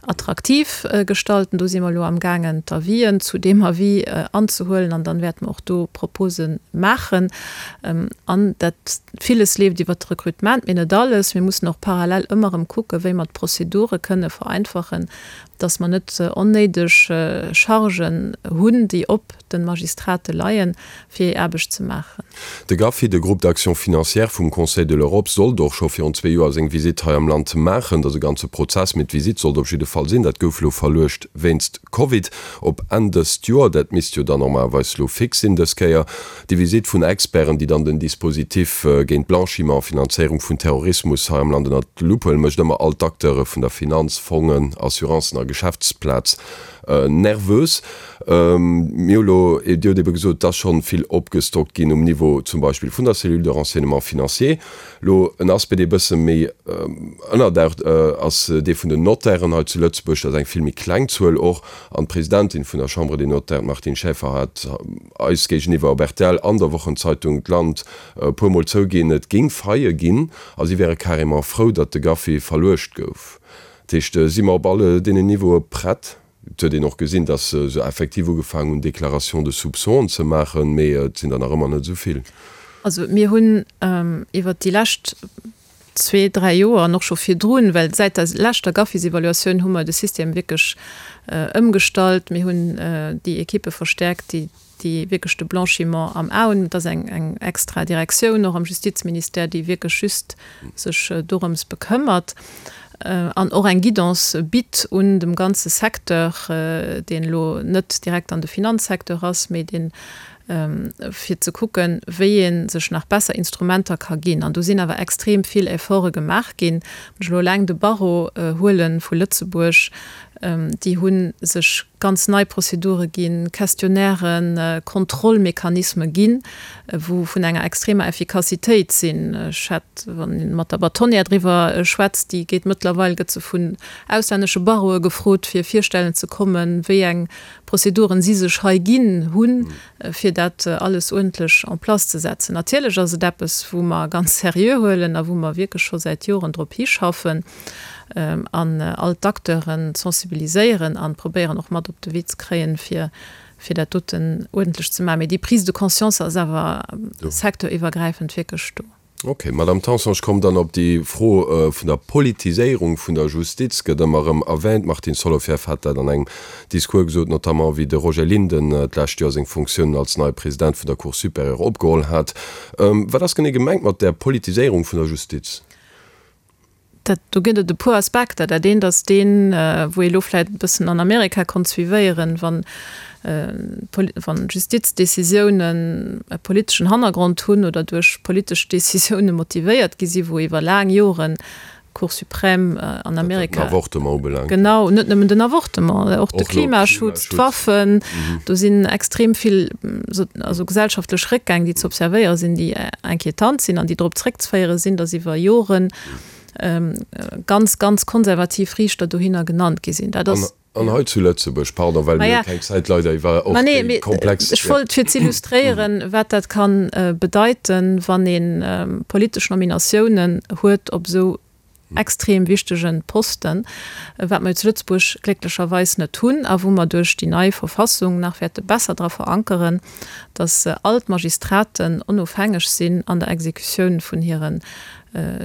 Speaker 4: attraktiv gestalten. Do si mer elo amgaangen, d'Avisen zu deem Avis anzehuelen an dann wäerte mer och do Propose maachen. An dat villes leeft iwwert de Recrutement, mee net alles. Mir mussen och parallel ëmmer erëm kucken, wéi mer d'Prozedure kënne vereinfachen, dass mer net onnéideg Chargen hunn, déi op de Magistrate leien, fir hir Aarbecht ze maachen.
Speaker 3: De GAFI, de Groupe d'action financière vum Conseil de l'Europe, sollt och scho virun zwee Joer seng Visitt hei am Land maachen. Dat ass e ganze Prozess, mee d'Visitt sollt op jidde Fall sinn. Dat gouf elo verluecht wéinst Covid op Enn dëst Joer. Dat misst jo dann normalerweis elo fix sinn dës Kéier. Déi Visitt vun Experten, déi dann den Dispositif géint Blanchiment a Finanzéierung vun Terrorismus hei am Land ënnert d'Lupp huelen, mécht ëmmer all d'Acteure vun der Finanz, Fongen, Assurancen a. Geschäftsplaz nervös. Mir hu lo, Dir hutt ebe gesot, et ass schonn vill opgestockt ginn um Niveau zum Beispill vun der Cellule de renseignement financier. Lo en Aspect, dee e bësse méi ënnerdaucht, ass dee vun den Notairen hei zu Lëtzebuerg. Dat ass eng vill méi kleng Zuel och. An d'Presidentin vun der Chambre des Notaires, d'Martine Schaeffer, hat eis géigeniwwer op rtl an der Wochenzeitung d'Land e puer Mol zouginn, et géing Faillë ginn a si wäre carrément frou, datt de GAFI verluecht gouf. Dat heescht, si mer op alle deenen Niveaue prett? Et huet een och gesinn, datt se effektiv ugefaangen hunn, Déclarations de soupçons ze maachen, mee et sinn der nach ëmmer net esou vill.
Speaker 4: Also mir hunn iwwert déi lescht zwee, dräi Joer an och scho virdrun, well säit der leschter GAFIS-Evaluatioun hu mer de System wierklech ëmgestallt. Mir hunn déi Ekippe verstäerkt, déi déi wierklech de Blanchiment am A hunn. Et ass eng eng extra Direktioun och am Justizministère, déi wierklech just sech dorëms bekëmmert an och eng Guidance bitt un dem ganze Secteur, deen elo net direkt an de Finanzsecteur ass, mee deen fir ze kucken, wéi ee sech nach besser Instrumenter ka ginn. An do sinn awer extrem vill Efforte gemaach ginn. Wann ech elo eleng de Barreau huele vu Lëtzebuerg, déi hu sech ganz nei Prozedure ginn, Questionnairen, Kontrollmechanisme ginn, wou vun enger extremer Effikassitéit sinn. Ech hätt, wann ee mat der Bâtonnière driwwer schwätzt, déi geet mëttlerweil, gëtt se vun auslännesche Barreaue gefrot, fir virstellen ze kommen, wéi eng Prozeduren si sech hei ginn hunn, fir dat alles uerdentlech en place ze setzen. Natierlech ass et eppes, wou mer ganz seriö huelen a wou mer wierklech scho säit Joren drop hischaffen an all d'Acteuren sensibiliséieren a probéieren och mat op de Wee ze kréien, fir fir dat doten uerdentlech ze maachen. Mee déi Prise de conscience ass awer secteuriwwergräifend wierklech do.
Speaker 3: Ok, Madame Tanson, ech kommen dann op déi Fro vun der Politiséierung vun der Justiz, gëtt ëmmer erëm erwähnt. D'Martine Solovieff hat dat an engem Discours gesot, notamment wéi de Roger Linden d'lescht Joer seng Funktiounen als neie President vun der Cour supérieure opgeholl hat. Wat ass genee gemengt mat där Politiséierung vun der Justiz?
Speaker 4: Dat, do gëtt et e puer Aspekter. Dat eent ass deen, wou ee lo vläicht e bëssen an Amerika konnt suivéieren, wann, wann Justizdecisiounen e politeschen Hannergrond hunn oder duerch politesch Decisiounen motivéiert gi sinn, wou iwwer laang Joren d'Cour suprême an Amerika.
Speaker 3: Wat den Avortement ubelaangt.
Speaker 4: Genau, net nëmmen den Avortement, och de Klimaschutz, d'Waffen. Do sinn extrem vill also gesellschaftlech Réckgäng, déi ze observéiere sinn, déi inquietant sinn an déi drop zréckzeféiere sinn, datt iwwer Joren ganz, ganz konservativ Riichter dohinner genannt gi sinn.
Speaker 3: Dat ass. An hei zu Lëtzebuerg, pardon, well mir hu keng Zäit leider iwwer och déi komplex.
Speaker 4: Ech wollt fir z'illustréieren, wat dat ka bedeiten, wann ee politesch Nominatiounen huet op esou extrem wichtege Posten, wat mer jo zu Lëtzebuerg glécklecherweis net hunn a wou mer duerch déi nei Verfassung nach wäerte besser dra verankeren, datt all d'Magistraten onofhängeg sinn an der Exekutioun vun hire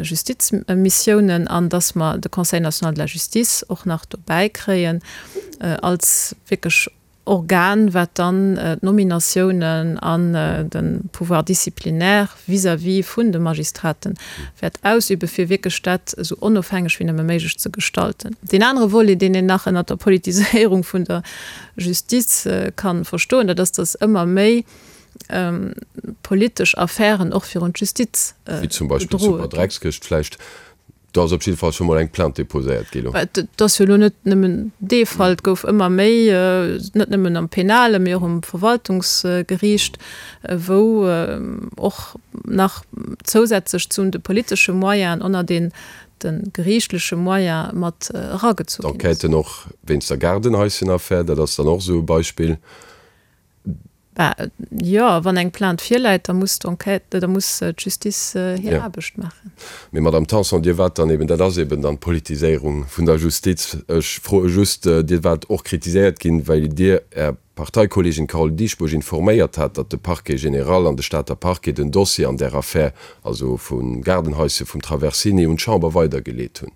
Speaker 4: Justizmissiounen an datt mer de Conseil national de la justice och nach dobäi kréien als wierklech Organ, wat dann d'Nominatiounen an de Pouvoir disciplinaire vis-à-vis vun de Magistraten wäert ausüben, fir wierklech dat esou onofhängeg wéi nëmme méiglech ze gestalten. Deen anere Volet, deen een nach ënnert der Politiséierung vun der Justiz ka verstoen, dat ass, datt ëmmer méi politesch Affären och virun d'Justiz
Speaker 3: Wéi zum Beispill
Speaker 4: gedroe ginn.
Speaker 3: d'Superdreckskëscht vläicht. Do ass op jidde Fall scho mol eng Plainte déposéiert gi lo.
Speaker 4: Et ass jo elo net nëmmen dee Fall. Et gouf ëmmer méi, net nëmmen am Penale, mee och um Verwaltungsgeriicht, wou och nach zousätzlech zu de politesche Moyenen ënner den de geriichtleche Moyen mat eragezu
Speaker 3: ginn ass. D'Enquêten och wéinst der Gaardenhaissenaffär, dat ass dann och esou e Beispill.
Speaker 4: Bah, jo, wann eng Plainte virläit, da muss d'Enquête, da muss d'Justice hir Aarbecht maachen.
Speaker 3: Mee Madame Tanson, Dir waart dann eben, dat ass eben dann d'Politiséierung vun der Justiz, ech froe just, Dir waart och kritiséiert ginn, well Dir Är Parteikolleegin Carole Dieschbourg informéiert hat, datt de Parquet général an de Stater Parquet den Dossier an där Affär, also vum Gaardenhaische vum Traversini, un d'Chamber weidergeleet hunn.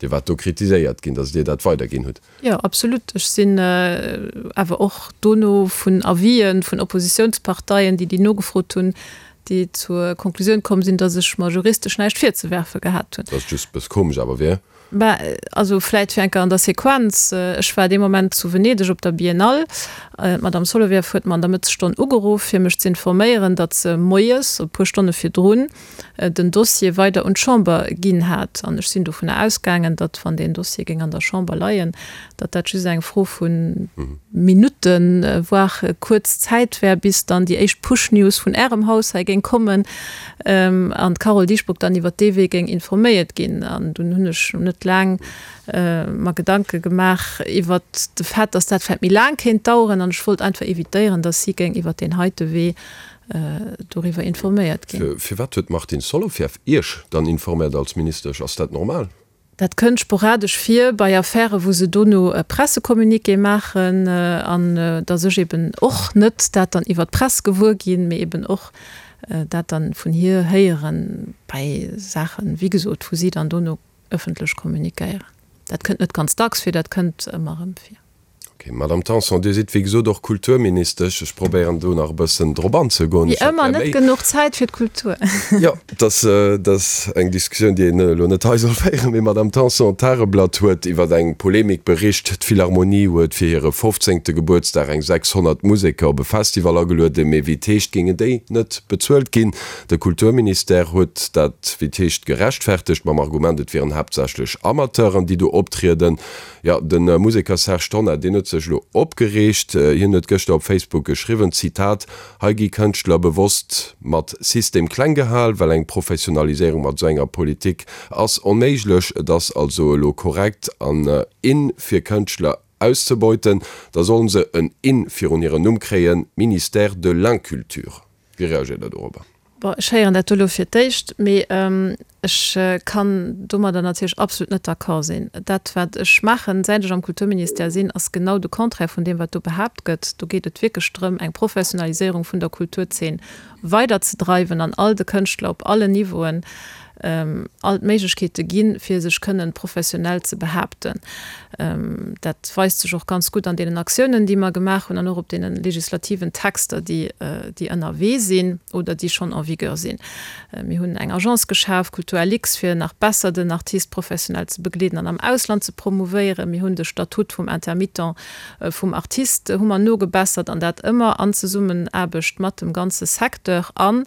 Speaker 3: Dir waart do kritiséiert ginn, datt Dir dat weiderginn hutt.
Speaker 4: Jo, absolut. Ech sinn awer och dono vun Avisen vun Oppositiounsparteien, déi déi nogefrot hunn, déi zur Konklusioun komm sinn, datt ech mer juristesch näischt virzewerfe gehat hunn.
Speaker 3: Dat ass just e bësse komesch awer, wier.
Speaker 4: Bah, also vläit fir eng Kéier an der Sequenz, Ech war dee Moment zu Venedeg op der Biennale. D'Madame Solovieff huet mer an der Mëttesstonn ugeruff, fir mech z'informéieren, datt se moies, e puer Stonne virdrun, den Dossier weider un d'Chamber ginn hat. An ech sinn dovunner ausgaangen, datt, wann deen Dossier géing an der Chamber leien, datt dat just eng Fro vu Minutten, voire kuerz Zäit wär, bis dann déi éischt Push-News vun Ärem Haus hei géing kommen an d'Carole Dieschbourg dann iwwert dee Wee géing informéiert ginn. An dunn hunn ech net laang mer Gedanke gemaach iwwert de Fait, datt dat vläicht méi laang kéint daueren. An ech wollt einfach evitéieren, datt si géing iwwert deen heite Wee doriwwer informéiert ginn.
Speaker 3: Firwat huet d'Martine Solovieff Iech dann informéiert als Ministesch? Ass dat normal?
Speaker 4: Dat kënnt sporadesch vir bei Affären, wou se dono e Pressecommuniqué maachen an datt ech eben och net dat dann iwwer d'Press gewuer ginn, mee eben och dat dann vun hir héieren bei Saachen, wéi gesot, wou si dann dono ëffentlech kommuniquéieren. Dat kënnt net ganz dacks vir, dat kënnt ëmmer erëm vir.
Speaker 3: Ok, Madame Tanson, Dir sidd wéi gesot och Kulturministesch. Ech probéieren do nach e bëssen drop anzegoen.
Speaker 4: Wéi ëmmer, net genuch Zäit fir d'Kultur.
Speaker 3: Jo, dat ass eng Diskussioun, déi een elo net hei soll féieren. Mee Madame Tanson, d'Tageblatt huet iwwer eng Polemik bericht. D'Philharmonie huet fir hire fofzéngte Gebuertsdag eng 600 Museker op e Festival agelueden. Mee wéi et heescht, géingen déi net bezuelt ginn. De Kulturministère huet dat, wéi et heescht, gerechtfertegt mam Argument, et wieren haaptsächlech Amateuren, déi do optrieden. Jo, de Museker Serge Tonnar, deen huet sech elo opgereegt. Hien huet gëschter op Facebook geschriwwen, Zitat, Hei gi Kënschtler bewosst mat System kleng gehal, well eng Professionaliséierung mat esou enger Politik ass onméiglech. Et ass also elo korrekt an in fir Kënschtler auszebeuten. Da sollen se en in virun hiren Numm kréien, Ministère de l'inculture. Wéi reagéiert Der dorobber?
Speaker 4: Bon, ech héieren dat do elo fir d'éischt, mee ech kann domadder natierlech absolut net d'accord sinn. Dat, wat ech maachen, säit ech am Kulturministère sinn, ass genau de Contraire vun deem, wat do behaapt gëtt. Do geet et wierklech drëm, eng Professionaliséierung vun der Kulturzeen weiderzedreiwen an all de Kënschtler op allen Niveauen all d'Méiglechkeete ginn, fir sech kënnen professionell ze behaapten. Dat weist sech och ganz gutt an deenen Aktiounen, déi mer gemaach hunn an och op deene legislativen Texter, déi, déi ënnerwee sinn oder déi schonn en vigueur sinn. Mir hunn eng Agence geschaf, Kulturlux, fir nach besser den Artiste professionell ze begleeden an am Ausland ze promouvéieren. Mir hunn de Statut vum Intermittent vum Artiste hu mer nogebessert, an dat ëmmer an Zesummenaarbecht mat dem ganze Secteur an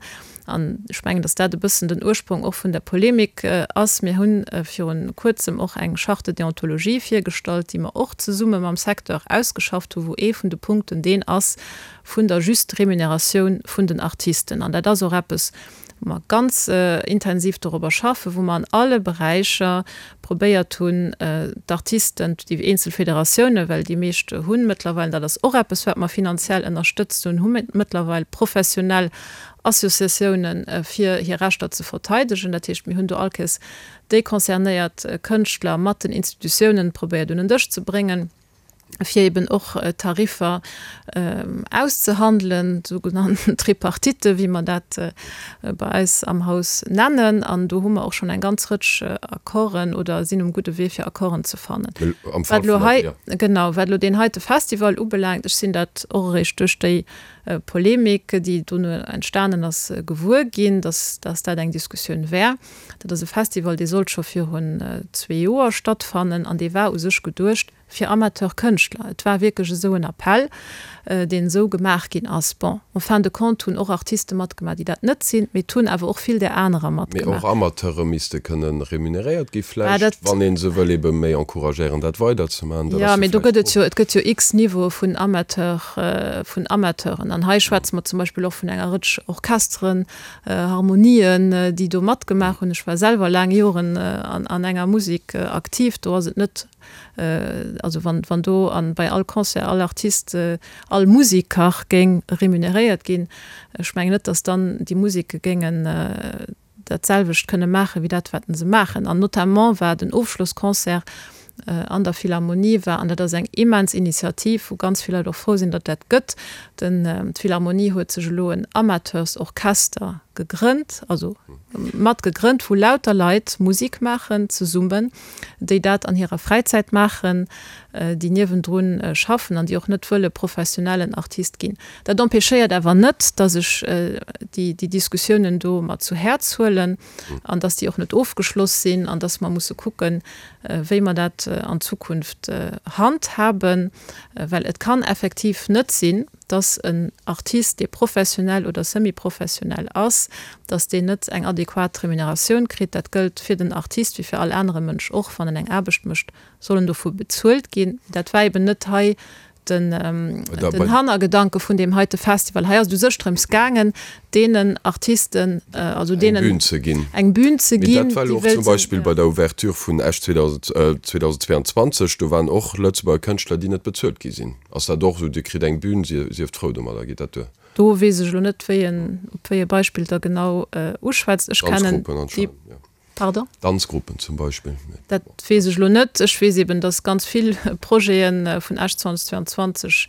Speaker 4: An ech mengen, datt dat e bëssen den Ursprong och vun der Polemik ass. Mir hu virun Kuerzem och eng Charte de déontologie virgestallt, déi mer och zesumme mam Secteur ausgeschafft hu, wou ee vun de Punkten deen ass vun der juste Remuneratioun vun den Artisten. An dat ass och eppes, wou mer ganz intensiv dorobber schaffen, wou mer an alle Beräicher probéiert hunn, d'Artisten, déi eenzel Federatiounen, well déi meescht hu mëttlerweil, dat ass och eppes, wat mer finanziell ënnerstëtzt hunn, hu mëttlerweil professionell Associatiounen, fir hir Rechter ze verteidegen. Dat heescht, mir hunn do all Kéiers déi concernéiert Kënschtler mat den Institutiounen probéiert un en Dësch ze bréngen, fir eben och Tariffer auszehandelen, sougenannten Tripartite, wéi mer dat bei eis am Haus nennen. An do hu mer och schonn eng ganz Rëtsch Accorden oder sinn um gudde Wee, fir Accorden ze fannen. Wat elo hei, genau, wat elo deen heite Festival ubelaangt, ech sinn dat och eréischt duerch déi Polemik, déi dono entstanen ass, gewuer ginn, dass dat eng Diskussioun wär. Dat ass e Festival, dee sollt scho virun zwee Joer stattfannen an dee war u sech geduecht fir Amateurkënschtler. Et war wierklech esou en Appell, deen esou gemaach ginn ass. Bon, en fin de compte hunn och Artiste matgemaach, déi dat net sinn, mee et hunn awer och vill där anerer
Speaker 3: matgemaach. Mee och Amateure misste kënne remuneréiert gi vläicht, wann ee se wëll ebe méi encouragéieren, dat weiderzemaachen.
Speaker 4: Jo, mee do gëtt et jo, et gëtt jo x Niveaue vun Amateur, vun Amateuren. An hei schwätze mer zum Beispill och vun enger Rëtsch Orchesteren, Harmonien, déi do matgemaach hunn. Ech war selwer laang Joren an enger Musek aktiv. Do ass et net, also wann, wann do an bei all Concert all Artist, all Museker géing remuneréiert ginn, ech mengen net, datt dann déi Museke géingen dat selwecht kënne maachen, wéi dat, wat se maachen. An notamment war den Ofschlossconcert an der Philharmonie war, an dat ass eng immens Initiativ, wou ganz vill Leit och frou sinn, datt dat gëtt, den, d'Philharmonie huet sech elo en Amateursorchester. gegrënnt, also mat gegrënnt, wou lauter Leit Musik maachen zesummen, déi dat an hirer Fräizäit maachen, déi niewendrun schaffen an déi och net wëlle professionellen Artist ginn. Dat empêchéiert awer net, datt ech déi Diskussiounen do mer zu Häerz huelen an datt déi och net ofgeschloss sinn an datt mer musse kucken, wéi mer dat an Zukunft handhaben, well et kann effektiv net sinn, dass en Artist, dee professionell oder semi-professionell ass, dass deen net eng adequat Remuneratioun kritt. Dat gëllt fir den Artist wéi fir all anere Mënsch och, wann en eng Aarbecht mécht, soll en dovu bezuelt ginn. Dat war eben net hei den Hannergedanke vun deem heite Festival. Hei ass et u sech drëms gaangen, deenen Artisten, also deenen
Speaker 3: eng Bühn ze ginn,
Speaker 4: eng Bühn ze
Speaker 3: ginn,
Speaker 4: déi
Speaker 3: dat war elo och zum Beispill bei der Ouverture vun Esch 2022, do waren och Lëtzebuerger Kënschtler, déi net bezuelt gi sinn. Ass dat och esou, Dir kritt eng Bühn, sieft frou domadder, geet dat duer?
Speaker 4: Do weess ech elo net, wéi en, op wéi e Beispill Der genau uschwätzt. Ech kennen déi.
Speaker 3: Pardon? Danzgruppen zum Beispill.
Speaker 4: Dat weess ech elo net. Ech weess eben, dass ganz vill Projete vun Esch 2022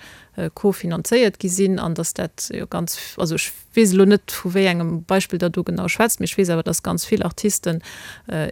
Speaker 4: cofinanzéiert gi sinn an dass dat jo ganz, also ech weess elo net, vu wéi engem Beispill Der do genau schwätzt, mee ech weess awer, dass ganz vill Artisten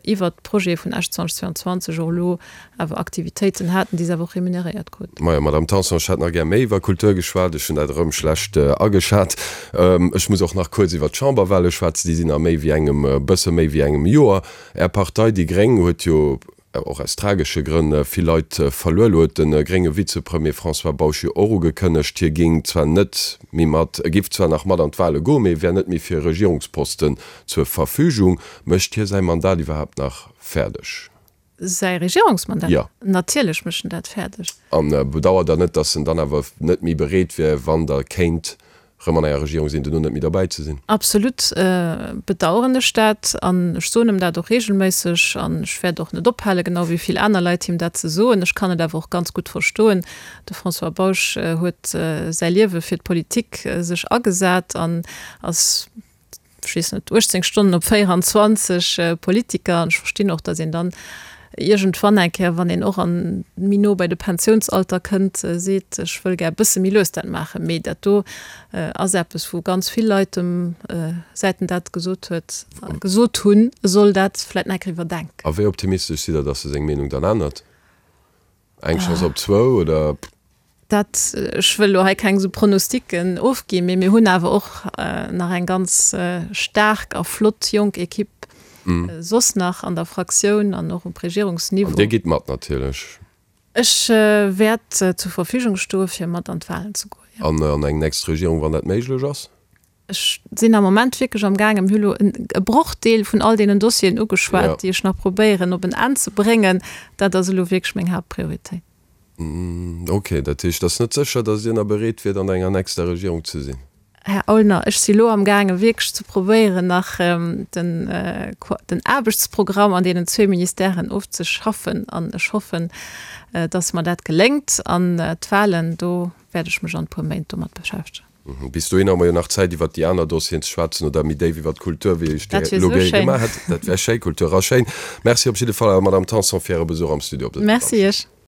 Speaker 4: iwwert d'Projete vun Esch 2022 och elo awer Aktivitéiten haten, déi se awer och remuneréiert kruten.
Speaker 3: Majo, Madamm Tanson, ech hätt nach gär méi iwwer Kultur geschwat. Ech hunn dat erëm schlecht ageschat. Ech muss och nach kuerz iwwer d'Chamberwahle schwätzen. Déi sinn a méi wéi engem, e bësse méi wéi engem Joer. Är Partei, déi gréng, huet jo, och aus tragesche Grënn, vill Leit verluer. Elo huet de grénge Vizepremier François Bausch jo och ugekënnegt, hie géing zwar net méi mat, e giff zwar nach mat an d'Wahle goen, mee e wär net méi fir e Regierungsposten zur Verfügung. Mécht hie säi Mandat iwwerhaapt nach fäerdeg?
Speaker 4: Säi Regierungsmandat?
Speaker 3: Jo.
Speaker 4: Natierlech mécht en dat fäerdeg.
Speaker 3: A bedauert Der net, datt en dann awer net méi bereet wier, wann Der kéint rëm an enger Regierung sinn, duerno net méi derbäi ze sinn?
Speaker 4: Absolut bedauern ech dat an ech soen em dat och regelméisseg an ech wäert och net ophalen, genau wéi vill aner Leit, him dat ze soen. Ech kann et awer och ganz gutt verstoen. De François Bausch huet säi Liewe fir d'Politik sech agesat an ass, ech weess net, 18 Stonnen op 24 Politiker an ech verstinn och, datt een dann iergendwann eng Kéier, wann een och an méi no bei de Pensiounsalter kënnt, seet, ech wëll gär e bësse méi lues dat maachen. Mee dat do ass eppes, wou ganz vill Leit em, säit en dat gesot huet, gesot hunn, e soll dat vläicht nach eng Kéier iwwerdenken.
Speaker 3: A wéi optimistesch sidd Der, datt e seng Meenung dann ännert? Eng Chance op zwou, oder?
Speaker 4: Dat, ech wëll elo hei keng esou Pronosticken ofginn, mee mir hunn awer och nach eng ganz staark a flott jonk Ekipp soss nach an der Fraktioun an och um Regierungsniveau.
Speaker 3: An Dir gitt mat natierlech?
Speaker 4: Ech wäert zur Verfügung stoe fir mat an d'Wahlen ze goen,
Speaker 3: jo. An an eng nächst Regierung, wann dat méiglech ass?
Speaker 4: Ech sinn am Moment wierklech am gaangen, mir hu lo e Brochdeel vun all deenen Dossieren ugeschwat, déi ech nach probéieren op en Enn ze bréngen. Dat ass elo wierklech meng Haaptprioritéit.
Speaker 3: Ok, dat heescht, et ass net sécher, datt Dir nach bereet wiert, an enger nächster Regierung ze sinn?
Speaker 4: Här Aulner, ech si lo amgaange wierklech ze probéieren, nach den den Aarbechtsprogramm an deenen zwee Ministèren ofzeschaffen an ech hoffen, datt mer dat geléngt. An d'Wahlen, do wäert ech mech an e puer Méint domat beschäftegen.
Speaker 3: Bis dohinner hu mer jo nach Zäit, iwwert déi aner Dossieren ze schwätzen oder méi déif iwwert d'Kultur, wéi ech
Speaker 4: Dat wier elo esou schéin.
Speaker 3: gemaach hätt. Dat wär schéi, Kultur ass schéin. Merci op jidde Fall awer, Madamm Tanson, fir Äre Besuch am Studio op
Speaker 4: dësem Merci Iech.